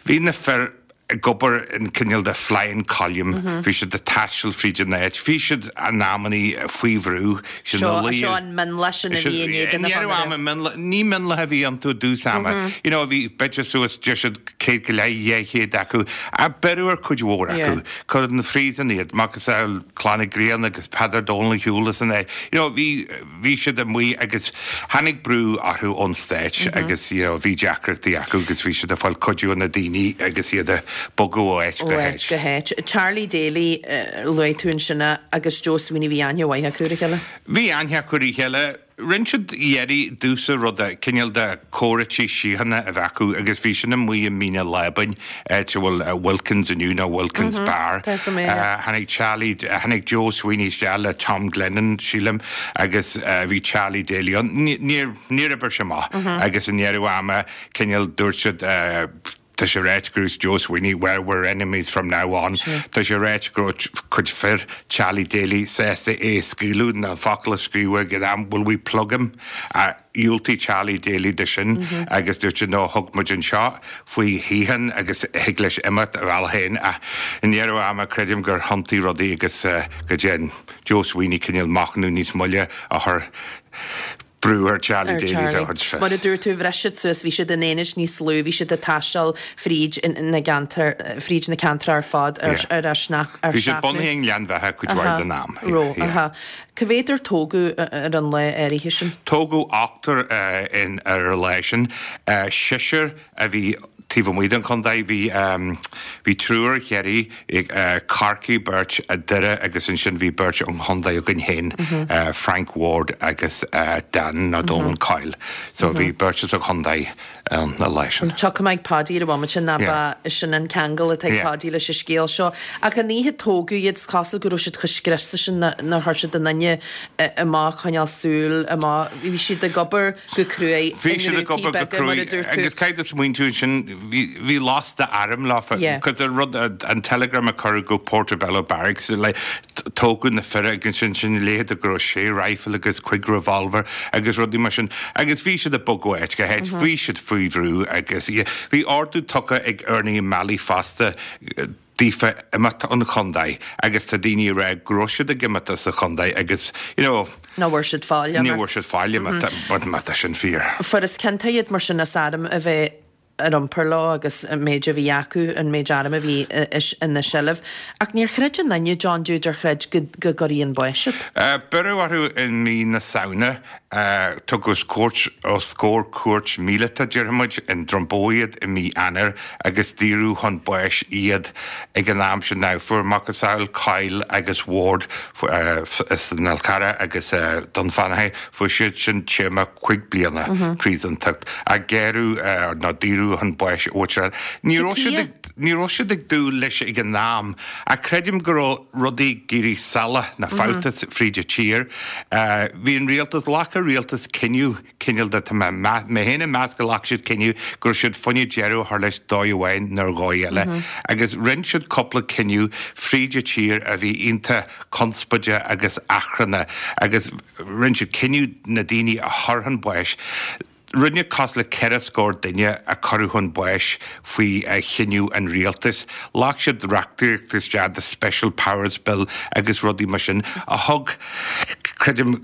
bhí na fir, ag obair in cineál de flying column, bhí siad ag taisteal fríd an áit, bhí siad in amannaí faoi bhrú, siad ina luí. Seo an mionlach sin a bhí in éadan an chonartha. Mionlach, ní mionlach a bhí iontu i dtús ama, you know, bhí b'fhéidir suas, deir siad 100 go leith, 200 acu, ach beireadh ar cuid mhór acu, cuireadh 'na phríosún iad, macasamhail Clann Uí Ghrianna agus Peadar Dónal Shiúil as an áit, you know, bhí. Bhí siad amuigh agus tháinig brú orthu ón Stáit agus you know bhí deacrachtaí acu agus bhí siad ag fáil cuidiú ó na daoine agus iad ag bogadh ó áit go háit. Ó áit go háit. Charlie Daly, luaigh tú ansin é, agus Joe Sweeney, bhí aithne mhaith acu ar a chéile? Bhí aithne acu ar a chéile. Rinne siad iarraidh i dtús an ruda, cineál de comhráití síochána a bheith acu agus bhí sin amuigh i Mín an Lábáin, áit a bhfuil Wilkins inniu nó Wilkins Bar. Tháinig Charlie, tháinig Joe Sweeney isteach le Tom Glennon, sílim, agus bhí Charlie Daly ann. Níor, níor oibir sé amach agus i ndeireadh ama, cineál, dúirt siad, tá sé ráite go raibh Joe Sweeney, well, we're enemies from now on. Tá sé ráite go raibh cuid fir Charlie Daly sásta é a scaoileadh, na focail a scríobhadh ag an am, will we plug him? Dhiúltaigh Charlie Daly do sin agus dúirt sé no thug muid anseo faoi shíocháin agus thig leis imeacht a bhealach féin ach i ndeireadh ama creidim gur thiontaigh rudaí agus go dtearn Joe Sweeney cineál machnamh níos moille a chur brú ar Charlie Daly a chuid fir. Mar a dúirt tú, bhris siad suas, bhí siad in aonaid níos lú, bhí siad ag taisteal fríd na gceantar, fríd na ceantracha ar fad ar ar ar seachnadh. Bhí siad bunaithe i nGleann Bheatha cuid mhaith den am. Raibh, aha. Cá mhéad ar tógadh ar an lá áirithe sin? Tógadh ochtar ar an lá sin. Seisear a bhí taobh amuigh den chontae. Bhí bhí triúr ó Chiarraí, Corcaigh, beirt, Doire agus ansin bhí beirt ón chontae againn féin, Frank Ward agus Dan nó Donal Coyle. So bhí beirt as an chontae ann an lá sin. Tiocfaidh mé ag Páidí ar an bhomaite ná ba sin an ceangal atá ag Páidí leis an scéal seo. Ach an oíche a tógadh iad, is cosúil go raibh siad chomh scriosta sin nár chuir siad aon duine amach, coinneáil súil amach. Bhí siad ag obair go cruaidh i ngrúpaí beaga, mar a dúirt tú. Agus caithfidh tú smaointiú ansin, bhí lasta airm leofa, because an rud, an telegram a cuireadh go Portobello Barracks, like, tógadh na fir agus ansin sin léithe go raibh sé rifle agus cuig revolver agus rudaí mar sin agus bhí siad ag bogadh ó áit go háit, bhí siad faoi bhrú agus bhí ordú tugtha ag Ernie O'Malley fosta daofa imeacht ón chontae agus tá daoine ag rá go raibh siad ag imeacht as an chontae agus you know Ní bhfuair siad fáil ní bhfuair siad fáil má tá sin fíor. Fuarthas ciontach iad mar sin as arm a bheith. ar iompar leo agus an méid a bhí acu, an méid airm a bhí ina seilbh. Ach níor chreid aon duine, John Jude, ar chreid go gcuirfí chun báis iad. Beireadh orthu i mí na Samhna. Tugadh os cúirt, os comhair cúirt míleata, déarfaimid, i nDroim Bó iad i mí Eanáir agus daoradh chun báis iad ag an am sin. Now, fuair macasamhail Coyle agus Ward as an Fhál Carrach agus Dún Fionnachaidh, fuair siad sin téarma cuig bliana príosúntacht ach gearradh nó daoradh chun báis a bhfuil Ní raibh siad ag, ní raibh siad ag dúil leis ag an am ach creidim go raibh rudaí ag éirí salach nó fabhta fríd an tír. Bhí an rialtas, ghlac an rialtas cinneadh, cineál de, tá mé, mé féin ag meas go ghlac siad cinneadh go raibh siad fá choinne deireadh a chur leis dóigh amháin nó ar dhóigh eile. Agus rinne siad cúpla cinneadh fríd an tír a bhí iontach conspóideach agus achrannach agus rinne siad cinneadh na daoine a chur chun báis. Rinne cosúil le ceithre scór duine a cuireadh chun báis faoi chinneadh an rialtais. Ghlac siad reachtaíocht isteach, the Special Powers Bill agus rudaí mar sin, a thug, creidim,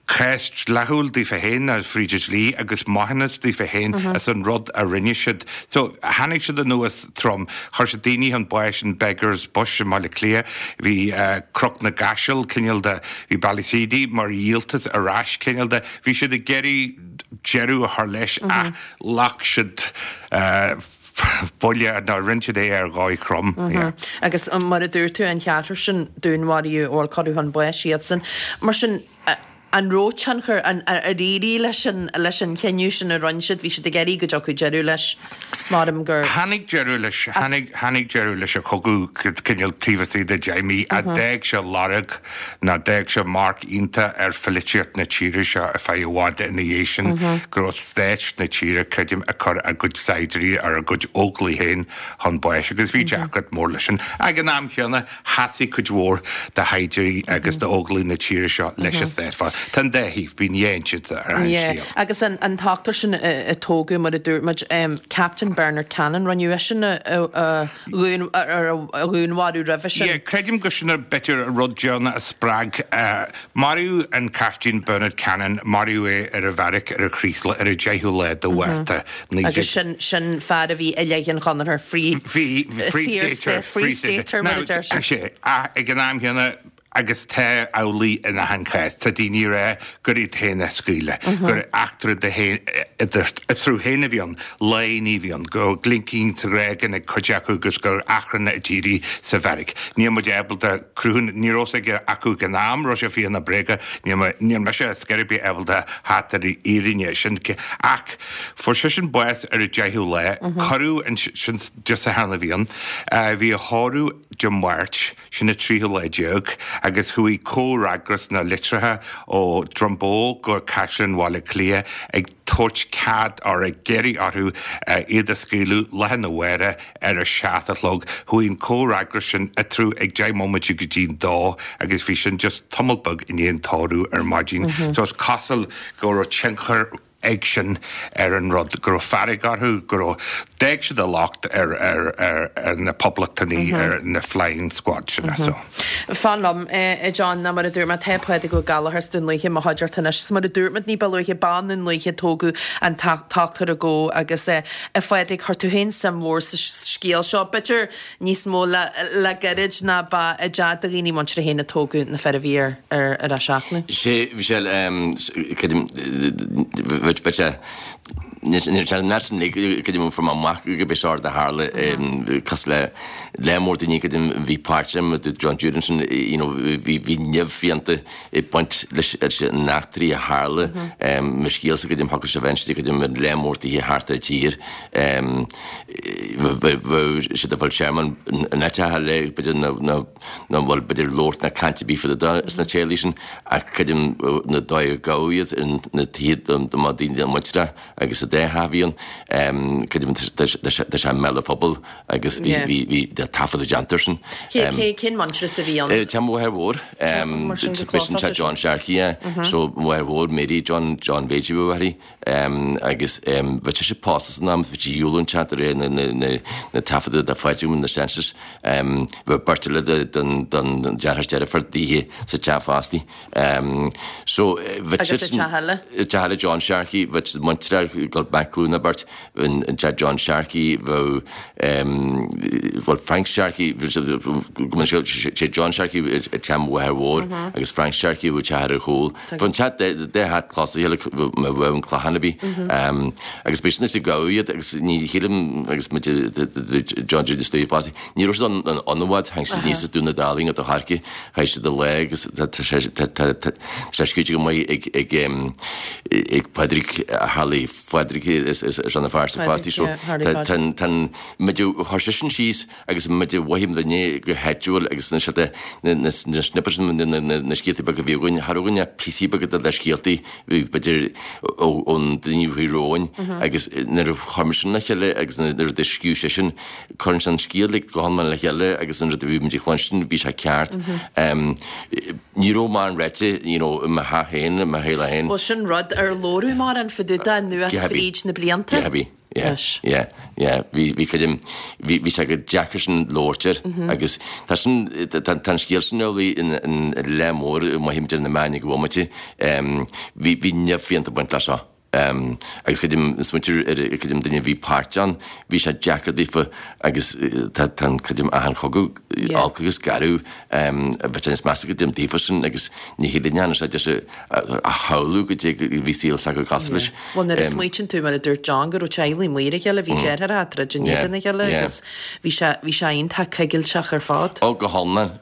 cás dleathúil daofa féin, fríd an dlí, agus maithiúnas daofa féin as an rud a rinne siad. So, tháinig siad anuas trom. Chuir siad daoine chun báis in Beggar's Bush i mBaile Átha Cliath. Bhí Cnoc na gCaiseal, cineál de, bhí Ballyseedy mar dhíoltas ar ais, cineál de. Bhí siad ag iarraidh deireadh a chur leis ach ghlac siad buille nó rinne siad é ar dhóigh throm. Agus mar a dúirt tú, an cheathrar sin, dúnmharaíodh, bhuel, cuireadh chun báis iadsan. Mar sin, an raibh tionchar, ar éirigh leis an leis an chinneadh sin a rinne siad, bhí siad ag iarraidh go dtiocfadh deireadh leis, maram gur. Tháinig deireadh leis, tháinig, tháinig deireadh leis an chogadh cineál taobh istigh de deich mí ach d'fhág sé lorg nó d'fhág sé marc iontach ar pholaitíocht na tíre seo ar feadh i bhfad ina dhiaidh sin, go raibh stát na tíre, creidim, ag cur a gcuid saighdiúirí ar a gcuid óglaigh féin chun báis agus bhí deacracht mór leis sin. Ag an am chéanna, sheasaigh cuid mhór de shaighdiúirí agus d'óglaigh na tíre seo leis an stát. Tá an dá thaobh, bíonn dhá intinn ar an scéal. Agus an t-ochtar sin a tógadh, mar a dúirt muid, Captain Bernard Cannon, rinneadh eisean a dhúnmharú roimhe sin. Yeah, creidim gur sin b'fhéidir an rud deireanach a spreag. Maraíodh an Caiftín Bernard Cannon, maraíodh é ar an bheairic ar an Chraoslach ar an 10ú lá de Mhárta, 19. Agus sin, sin fear a bhí i leith an Chonartha, Free, Bhí, Free Stater, Free Stater mar a deir siad. Sea, ach ag an am chéanna, agus tá amhlaidh in achan chás, tá daoine ag rá gur iad féin a scaoileadh, gur eachtra eatarthu féin a bhí ann, léine a bhí ann, go raibh glincín sa ghrágan ag cuid acu agus gur achrann a d'éirigh sa bheairic. Níl muid ábalta cruthúnas, ní raibh fhios aige acu ag an am, raibh sé fíor nó bréagach, níl níl mise ar scor ar bith ábalta theacht ar an fhírinne sin. Ach fuair seisean bás ar an deichiú lá, cuireadh an, sin Dé Sathairn a bhí ann, bhí a thórramh Dé Máirt, Sin an tríú lá déag agus chuaigh comhfhreagras na litreacha ó Droim Bó go Caisleán Bhaile Átha Cliath ag tabhairt cead or ag iarraidh orthu iad a scaoileadh lá arna mhárach ar a seacht a chlog. Chuaigh an comhfhreagras sin eatarthu ag deich mbomaite go dtí'n dó agus bhí sin just tamall beag i ndiaidh an tórraimh ar maidin. So is cosúil go raibh tionchar ag sin ar an rud, go raibh fearg orthu, go raibh, d'fhág siad a locht ar, ar, ar, ar na Poblachtanaigh, ar na Flying Squad sin, so. Fan liom, a John, ná mar a dúirt mé, tá Pádraig Ó Gallchóir as Dún Lúiche i mo chuideachta anois. Is mar a dúirt muid ní ba luaithe, b'i nDún Lúiche a tógadh an t-ochtar a gabhadh agus, a Phádraig, chuir tú féin suim mhór sa scéal seo. B'fhéidir níos mó le gairid ná ba i dteach do dhaoine muinteartha féin a tógadh na fir a bhí ar ar a seachnadh. Sé, bhí sé, creidim, bheadh sé, níl sé an sin creidim fuair mé amach go b'é seo a tharla cosúil le lear mór daoine creidim bhí páirt agam i John Jude ansin you know bhí bhí nimh fiánta ag baint leis an eachtraí a tharla mo scéalsa creidim thiocfadh sé bheith inste creidim i lear mór tithe thart ar an tír. Bheadh siad ag fáil tearmann in áiteacha eile, b'fhéidir nach bhfuil b'fhéidir labhairt ná caint ar bith fá dtaobh de sna teaghlaigh sin, ach creidim na dóigh ar gabhadh iad na tithe do mba daoine muinteartha agus sa dá theach a bhí ann, creidim tá sé i mbéal an phobail agus bhí bhí taifead déanta air sin. Cén muintearas a bhí ann? Teach mo mháthair mhór, b'shin teach John Sharkey, so mo mháthair mhór Mary John John Mhéidí ba mháthair í. Agus bheadh sise pósta san am, bhí sí dhiúl an teach de réir na taifeadta de Phádraig na census. Bheadh beirt eile den deartháir is deirfiúr daoithe sa teach fostaí. So bheadh Agus sa teach eile? Teach eile John Sharkey, bheadh siad muinteartha ag dul back glúin an bheirt, an teach John Sharkey, bheadh bhuel Frank Sharkey, go mbeadh sé John Sharkey i teach mo mháthair mhór agus Frank Sharkey a bheadh teach ar a chúl. Bheadh an teach dá theach clos a chéile má bheadh an clachán ar bith. Agus b'é sin is a gabhadh iad agus ní shílim agus muid John Jude istigh fosta, ní raibh siad ann i bhfad, tháinig siad aníos as Dún na Dálaing go Corcaigh, chaith siad a lá agus tá sé scríte go maith ag ag ag Pádraig Harley Phádraig is is an fear sa fostaí so tá an muid a chuir seisean síos agus muid a mhothaigh muidne go háitiúil agus na siad na snippets na scéaltaí beaga a bhí againn, cha raibh againn ach píosaí beaga de scéaltaí b'fhéidir ón duine a bhí romhainn agus nuair a chuir muid sin le chéile agus nuair a scríobh seisean, cuireann sé an scéal go hiomlán le chéile agus an rud a bhí muid ag cluinstin, bhí sé ceart. Ní raibh mórán ráite, you know, i mo theach féin, i mo theaghlach féin. Bhuel, sin rud ar labhradh mórán fá dtaobh de anuas fríd na blianta. Go hea. Yeah, yeah, yeah. Bhí, bhí creidim, bhí, bhí sé go deacair sin labhairt air agus tá sin, tá, tá an scéal sin amhlaidh in, in leath mór i mothaím idir na meáin ag an bhomaite. Bhí, bhí nimh fiánta ag baint leis seo. Agus creidim, smaointear ar, creidim duine a bhí páirt ann, bhí sé deacair daofa agus tá, tá an, creidim achan chogadh olc agus garbh, bheadh sé níos measa go dtim daofa sin agus ní hé linne sé deis a shamhlú goidé a bhí saol s'acu cosúil leis. Bhuel, nuair a smaoitíonn tú, mar a dúirt John, go raibh teaghlaigh amuigh ar a chéile, bhí deartháireacha ag troid in éadan a chéile agus bhí sé, bhí sé iontach coigilteach ar fad. Ó, go hiomlán.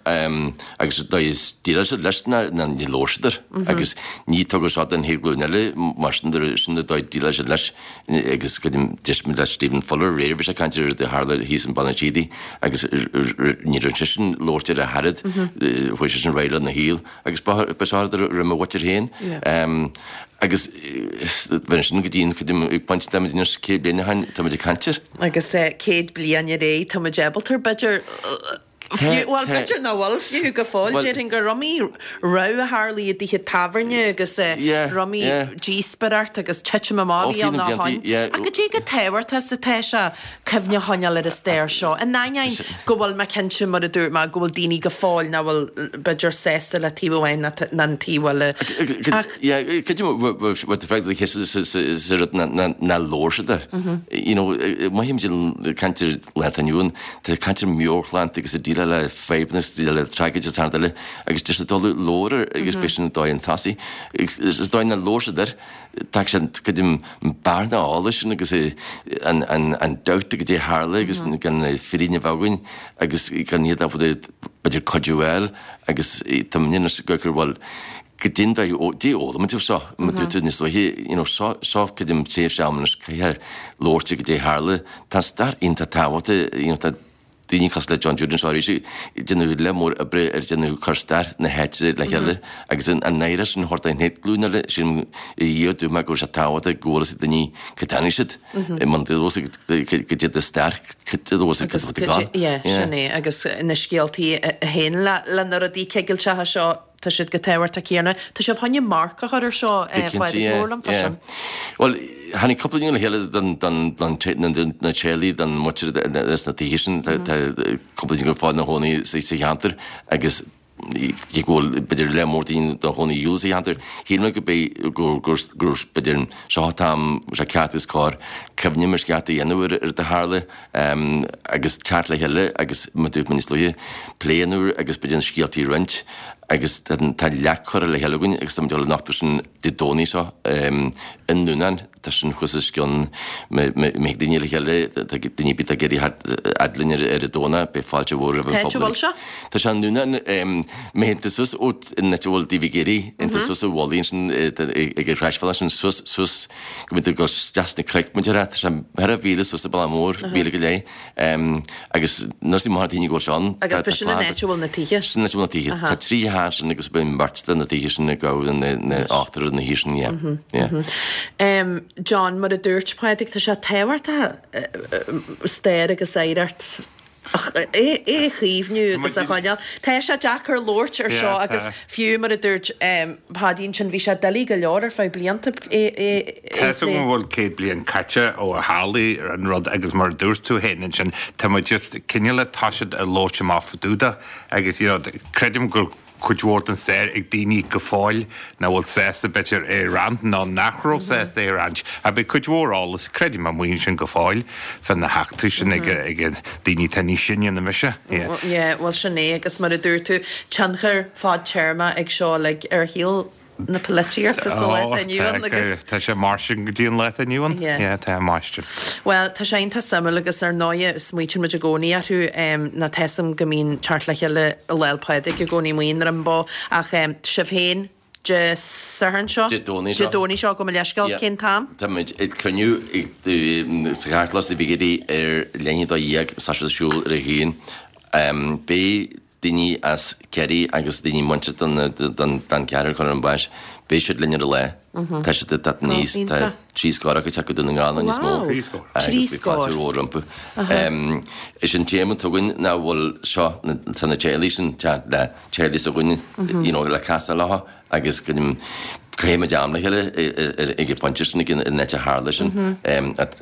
Agus dóigh is déileáil siad leis ná ní labhair siad air. Agus ní tugadh seo don chéad ghlúin eile, mar sin sin an dóigh a déileáil siad leis. Agus creidim, d'éist muid le Stephen Fuller aréir, bhí sé ag caint ar rud a tharla thíos in Baile an tSíodaigh agus ní raibh seisean labhairt air ach oiread, chuaigh seisean ar aghaidh lena shaol. Agus ba seo rud a raibh mo mhuintir féin. Agus bheinn sin go dtí an chuid ag baint táimid anois 100 bliain ó shin, táimid ag caint air. Agus 100 bliain ar aghaidh, táimid ábalta, b'fhéidir, fiú, bhuel, b'fhéidir nach bhfuil fiú go fóill, déarfainn gur iomaí rud a tharlaigh i dtithe tábhairne agus iomaí díospóireacht agus titim amach a bhí ann ó shoin. Ach goidé chomh tábhachtach is atá sé cuimhne a choinneáil ar an stair seo. In ainneoin go bhfuil mé cinnte, mar a dúirt mé, go bhfuil daoine go fóill nach bhfuil, b'fhéidir, sásta le taobh amháin ná an taobh eile. Ach. Yeah, cad é what the fact the case is sa rud ná labhair siad air. You know, mothaím ag caint ar lá atá inniu ann, tá caint ar meabhairshláinte agus ag déileáil le fadhbanna is déileáil le tragóid is thart eile agus just ag dul labhair air agus b'é sin an dóigh an tosaigh. Is dóigh ná labhair siad air. Tá sé go dtí bearna eolais sin agus an dabht goidé a tharla agus gan fírinne a bheith againn agus gan iad ábalta b'fhéidir cuidiú a fháil agus tá muid anois ag cur bhuel goidé an dóigh goidé a fhoghlaim muid seo mar dúirt tú níos luaithe you know seo seo creidim tréimhse ama anois caithfear labhairt ar goidé a tharla tá an stair iontach tábhachtach you know tá daoine cosúil le John Jude anseo arís ag déanamh lear mór oibre ar déanamh cur stair na háite le chéile agus an oidhreacht sin a thabhairt don chéad ghlúin eile sin i dhiaidh dúinn go bhfuil sé tábhachtach go bhfuil fhios ag daoine cá dtáinig siad i mbun goidé do stair cad a bhfuil Agus yeah sin é agus na scéaltaí a théann le na rudaí cigilteacha seo Tá siad chomh tábhachtach céanna. Tá sibh chun marc a chur ar seo, a Phádraig, labhair liom fá sin. Bhuel, tháinig cúpla duine le chéile don na teaghlaigh, don mhuintir sna tithe sin. Tá cúpla duine go fóill ina chónaí sa cheantar agus cé go bhfuil b'fhéidir lear mór daoine ina chónaí sa cheantar, shíl mé go b'é gur b'fhéidir seo an t-am sé ceart agus cóir cuimhneamh ar sceart a dhéanamh ar rud a tharla. agus teacht le chéile agus mar dúirt mé níos luaithe, plé a dhéanamh agus b'fhéidir na scéaltaí a roinnt agus tá leac curtha le chéile againn agus táimid ag dul a nochtadh sin Dé Domhnaigh seo i nDúnán, tá sin thuas os cionn má thig daoine le chéile, tá daoine ar bith atá ag iarraidh theacht fhad linn ar an Domhnach, beidh fáilte mhór roimh an phobal. Cá háit a bhfuil sé? Tá sé i nDúnán, má théann tú suas ó an áit a bhfuil Daoibh ag Éirí, théann tú suas an mhullaigh ansin ag an chroisbhealach sin suas, suas go mbíonn tú ag dul isteach sna cnoic muid ar tá sé thar mhíle suas an bealach mór, míle go leith, agus nuair is maith daoine go bhfuil sé ann. Agus ba sin an áit a bhfuil na tithe? Sin an áit a bhfuil na tithe. Tá trí theach ansin agus bíonn beirt de na tithe sin ag gabháil na ochtar na thithe sin, yeah. Yeah. John, mar a dúirt Pádraig, tá sé tábhachtach stair agus oidhreacht. É a chaomhnú agus a choinneáil. Tá sé deacair labhairt ar seo agus fiú mar a dúirt Páidí ansin bhí sé doiligh go leor ar feadh blianta é a Tá 'fhios agam go bhfuil 100 bliain caite ó a tharla an rud agus mar a dúirt tú féin ansin tá muid just cineál toiseacht ag labhairt amach fá dtaobh de agus you know creidim go cuid mhór den stair ag daoine go fóill nach bhfuil sásta b'fhéidir é a roinnt nó nach raibh sásta é a roinnt. Ach beidh cuid mhór eolas, creidim, amuigh ansin go fóill fá na heachtraí sin ag daoine atá níos sine ná mise. Yeah, bhuel sin é agus mar a dúirt tú, tionchar fadtéarmach ag seo uilig ar shaol na polaitíochta sa lá atá inniu ann agus. Tá sé mar sin go dtí an lá atá inniu ann. Yeah, tá a máistir. Bhuel, tá sé iontach suimiúil agus ar ndóighe smaoitíonn muid i gcónaí orthu nó tá 'fhios a'm go mbíonn teacht le chéile Lá 'le Pádraig i gcónaí amuigh i nDroim Bó ach sibh féin Dé Sathairn seo? Dé Domhnaigh seo. Dé Domhnaigh seo, gabh mo leithscéal, cén t-am? Tá muid ag cruinniú sa Chartlann sa Bhigéidí ar leath i ndiaidh 12 tá sé ar siúl ar a haon. Beidh daoine as Ciarraí agus daoine muinteartha don cheathrar a cuireadh chun báis, beidh siad linn ar an lá. Tá siad ag teacht aníos, tá trí scór acu ag teacht go Dún na nGall nó níos mó agus beidh fáilte mhór rompu. Is an téama atá againn ná bhfuil seo, tá na teaghlaigh sin teacht le teaghlaigh s'againne, you know, le casadh leo agus go gcaithfidh muid am le chéile ag an phointe sin, ag an áit a tharla sin.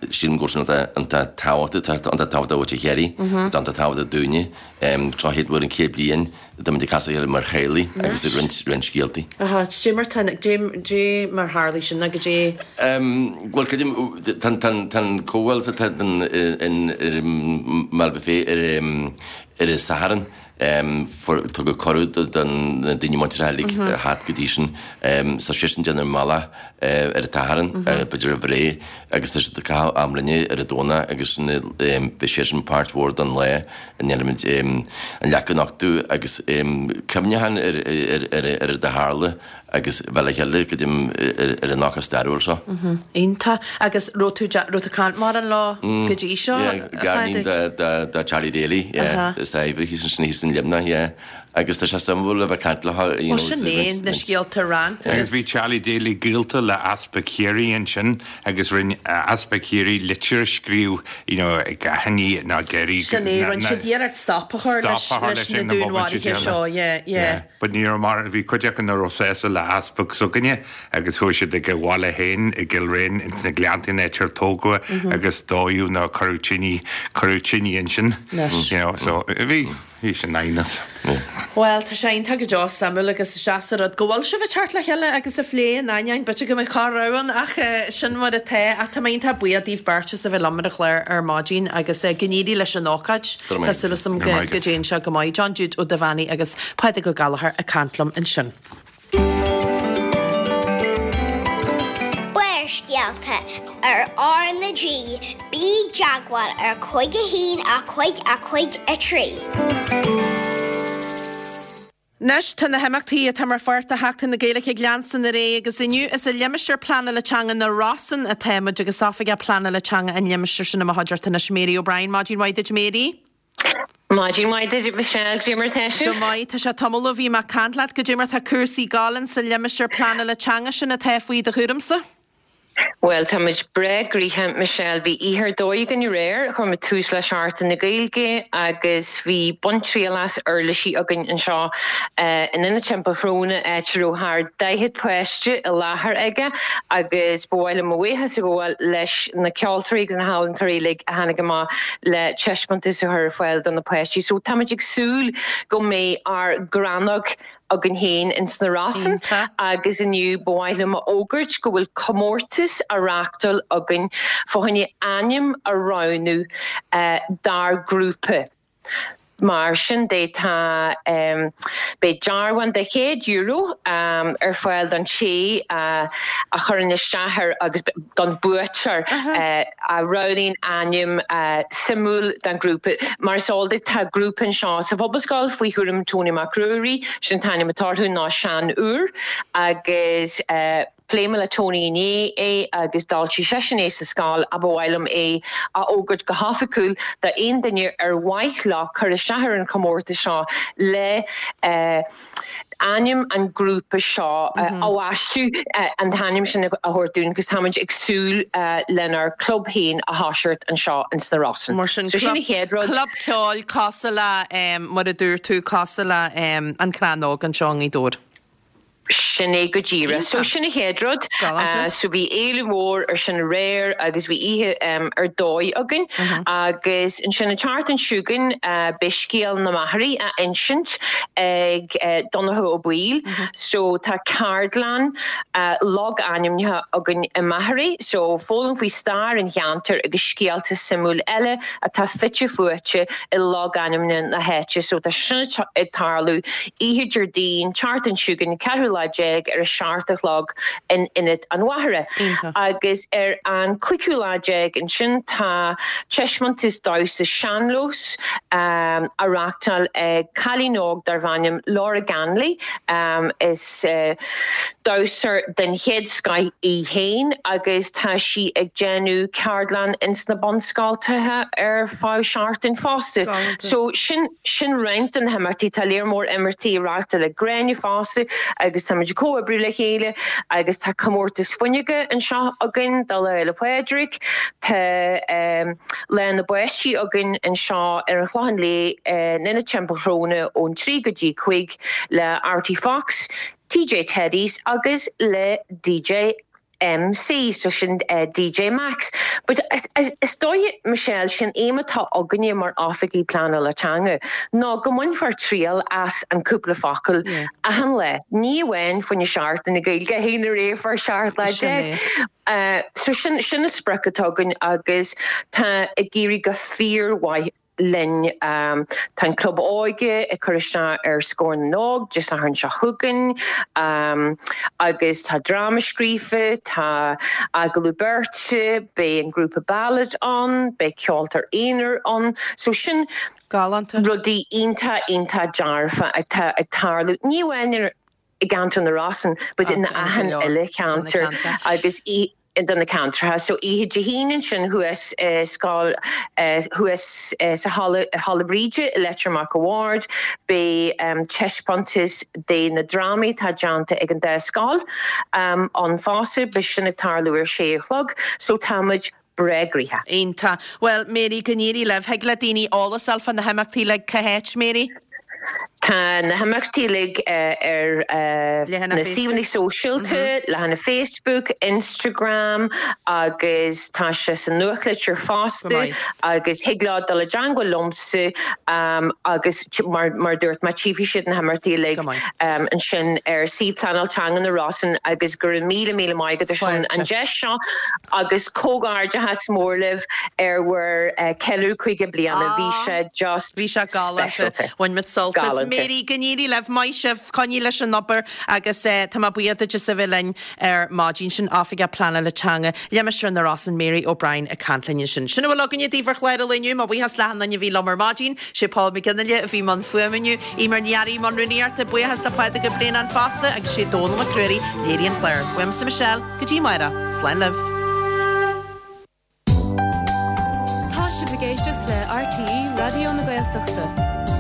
Sílim go bhfuil sin iontach tábhachtach, tá iontach tábhachtach do mhuintir Chiarraí, tá iontach tábhachtach dúinne. Seo chéad uair in 100 bliain atá muid ag casadh le chéile mar theaghlaigh agus ag roinnt roinnt scéaltaí. Aha, dé mar tá, dé, dé mar tharlaigh sin nó goidé? Bhuel, creidim, tá an comhdháil atá in ar an mBaile Buffet ar ar an Satharn. Tugadh cuireadh do na daoine muinteartha uilig a theacht go dtí sin. Tá seisean ag déanamh an bealach ar an tSatharn, b'fhéidir roimh ré, agus tá siad ag caitheamh am linne ar an Domhnach agus beidh seisean páirt mhór den lá a ndéanfaimid an leac a nochtadh agus cuimhneachán ar ar a tharla. agus bheith le chéile go dtí ar an ócáid stairiúil seo. Iontach. Agus raibh tú, raibh tú ag caint mórán leo go dtí seo, a Phádraig? Garníon de Charlie Daly, yeah, is Ivy, thíos ansin, thíos in Luimneach, yeah. Agus tá sé suimiúil a bheith ag caint leo, you know. Bhuel, sin é, na scéalta a roinnt agus. Agus bhí Charlie Daly gaolta le Easpag Chiarraí ansin agus rinne Easpag Chiarraí litir a scríobh, you know, ag aithní nó ag iarraidh. Sin é, rinne siad iarracht stop a chur leis na dúnmharuithe seo, yeah, yeah. But ní raibh mar, bhí cuid acu nach raibh sásta le easpag s'againne agus chuaigh siad ag a bhaile féin i gCill Réin ins na Gleanntaí an áit ar tógadh é agus dódh nó cuireadh tine, cuireadh tine ansin. You know, so bhí, bhí sin aighneas. Bhuel, tá sé iontach go deo, suimiúil agus is deas an rud go bhfuil sibh ag teacht le chéile agus ag plé in ainneoin b'fhéidir go mbeadh corr-rogha ann ach sin mar atá. Ach tá mé iontach buíoch daoibh beirt as a bheith liom ar an chlár ar maidin agus go n-éirí leis an ócáid. Tá súil agam go dtéann sé go maith. John Jude Ó Duibheannaigh agus Pádraig Ó Gallchóir ag caint liom ansin. Barrscéalta ar R na G, bí i dteagmháil ar 5 1 5 5 3. Anois, tá na himeachtaí atá mar pháirt de Sheachtain na Gaeilge ag leanstan ar aghaidh agus inniu is i limistéar pleanála teanga na Rosann atá muid agus Oifigeach Pleanála Teanga an limistéir sin i mo chuideachta anois, Mary O'Brien. Maidin mhaith duit, Mary. Maidin mhaith duit, Michelle. Goidé mar atá sibh? Go maith. Tá sé tamall ó bhí mé ag caint leat. Goidé mar atá cúrsaí ag gabháil insa limistéar pleanála teanga sin atá faoi do chúramsa? Bhuel, tá muid breá gnoitheach, Michelle. Bhí oíche ar dóigh againn aréir. Chuir muid tús le Seachtain na Gaeilge agus bhí baint triail as uirlisí againn anseo in Ionad Teampall Shróine, áit a raibh thar 40 páiste i láthair aige agus ba mhaith liom mo bhuíochas a ghabháil leis na ceoltóirí agus na healaíontóirí uilig a tháinig amach le taispeántas a chur ar fáil do na páistí. So táimid ag súil go mbeidh ár gcrannóg againn féin ins na Rosann agus inniu ba mhaith liom a fhógairt go bhfuil comórtas á reáchtáil againn fá choinne ainm a roghnú dár grúpa. Mar sin de tá beidh dearbhán de €100 ar fáil don té a chuireann isteach air agus don buaiteoir a roghnaíonn ainm suimiúil don ghrúpa. Mar is eol duit tá grúpa anseo sa Phobalscoil faoi chúram Tony Mac Ruairí, sin an t-ainm atá orthu ná Sean Úr agus. Phléigh mé le Tony inné é agus d'fháiltigh seisean é sa scoil ach ba mhaith liom é a fhógairt go hoifigiúil d'aon duine ar mhaith leo cur isteach ar an chomórtas seo le ainm an ghrúpa seo a bhaisteadh, an t-ainm sin a thabhairt dúinn agus táimid ag súil lenár gclub féin a thoiseacht anseo ins na Rosann. Mar sin, So sin an chéad rud. club ceoil cosúil le, mar a dúirt tú, cosúil le An Crann Óg anseo i nGaoth Dobhair. Sin é go díreach. So sin an chéad rud. Galánta. So bhí éileamh mór ar sin aréir agus bhí oíche ar dóigh againn. Agus ansin an tseachtain seo chugainn beidh scéal na Machairí á insint ag Donncha Ó Baoill. So tá ceardlann logainmneacha againn i Machairí. So foghlaim faoi stair an cheantair agus scéalta suimiúil eile atá fite fuaite i logainmneacha na háite. So tá sin ag tarlú oíche Déardaoin, tseachtain seo chugainn, ceathrú lá déag ar a seacht a chlog in Ionad an Mhachaire. Agus ar an cúigiú lá déag ansin tá taispeántas damhsa sean-nós á reachtáil ag cailín óg darbh ainm Laura Ganley. Is damhsóir den chéad scoith í féin agus tá sí ag déanamh ceardlann ins na bunscoltacha ar feadh seachtain fosta. So sin sin roinnt de na himeachtaí. Tá léar mór imeachtaí á reachtáil ag Gráinne fosta agus táimid ag comhoibriú le chéile agus tá comórtas fuinneoga anseo againn do Lá Fhéile Pádraig. Tá Lá na bPáistí againn anseo ar an Chlochán Liath in Ionad Teampall Shróna ón 3 go dtí 5 le Artie Fox, TJ Teddies agus le DJ MC, so sin DJ Max. But is dóiche, Michelle, sin aidhm atá againne mar oifigigh pleanála teanga ná go mbainfear triail as an cúpla focal achan lá, ní amháin fá choinne Seachtain na Gaeilge a haon ar 17 lá. So sin sin an sprioc atá againn agus tá ag éirí go fíormhaith. linn. Tá an Club Óige ag cur isteach ar Scór na nÓg Dé Sathairn seo chugainn agus tá dráma scríofa, tá agallamh beirte, beidh an grúpa Ballad ann, beidh ceoltóir aonair ann. So sin Galánta. rudaí iontach, iontach dearfa atá ag tarlú, ní amháin i gceantar na Rosann but in achan uile cheantar agus i do na ceantracha. So oíche Dé hAoine ansin thuas i scoil thuas sa halla Halla Bríde i Leitir Mac a' Bhaird beidh taispeántas de na drámaí atá déanta ag an dá scoil ann fosta. Beidh sin ag tarlú ar sé a chlog. So tá muid breá gnoitheach. Iontach. Bhuel, Mary, go n-éirí libh. Thig le daoine eolas a fháil fá na himeachtaí uilig cá háit, Mary? Tá na himeachtaí uilig ar na suíomhanna sóisialta, leathanach Facebook, Instagram agus tá sé sa nuachtlitir fosta agus thig leo dul i dteangmháil liomsa agus mar a dúirt mé tchífidh siad na himeachtaí uilig ansin ar suíomh Pleanáil Teanga na Rosann agus go raibh míle míle maith agat ar son an deis seo agus comhghairdeachas mór libh ar bhur ceiliúradh 50 bliana. Bhí sé just Bhí sé galánta. speisialta. Bhain muid sult as. Galánta. Mary, go n-éirí libh. Maith sibh. Coinnigh leis an obair agus tá mé buíoch duit as a bheith linn ar maidin. Sin Oifigeach Pleanála Teanga Limistéar na Rosann, Mary O'Brien ag caint linn ansin. Sin a bhfuil againne daoibh ar chlár an lae inniu. Mo bhuíochas le achan duine a bhí liom ar maidin. Sé Paul McGinley a bhí i mbun fuaime inniu. Eimear Ní Fhearraigh i mbun rúnaíochta. Buíochas le Pádraig Ó Braonáin fosta agus sé Dónal Mac Ruairí a léirigh an clár. Uaimse Michelle, go dtí amárach. Slán libh. Tá sibh ag éisteacht le RTÉ Raidió na Gaeltachta.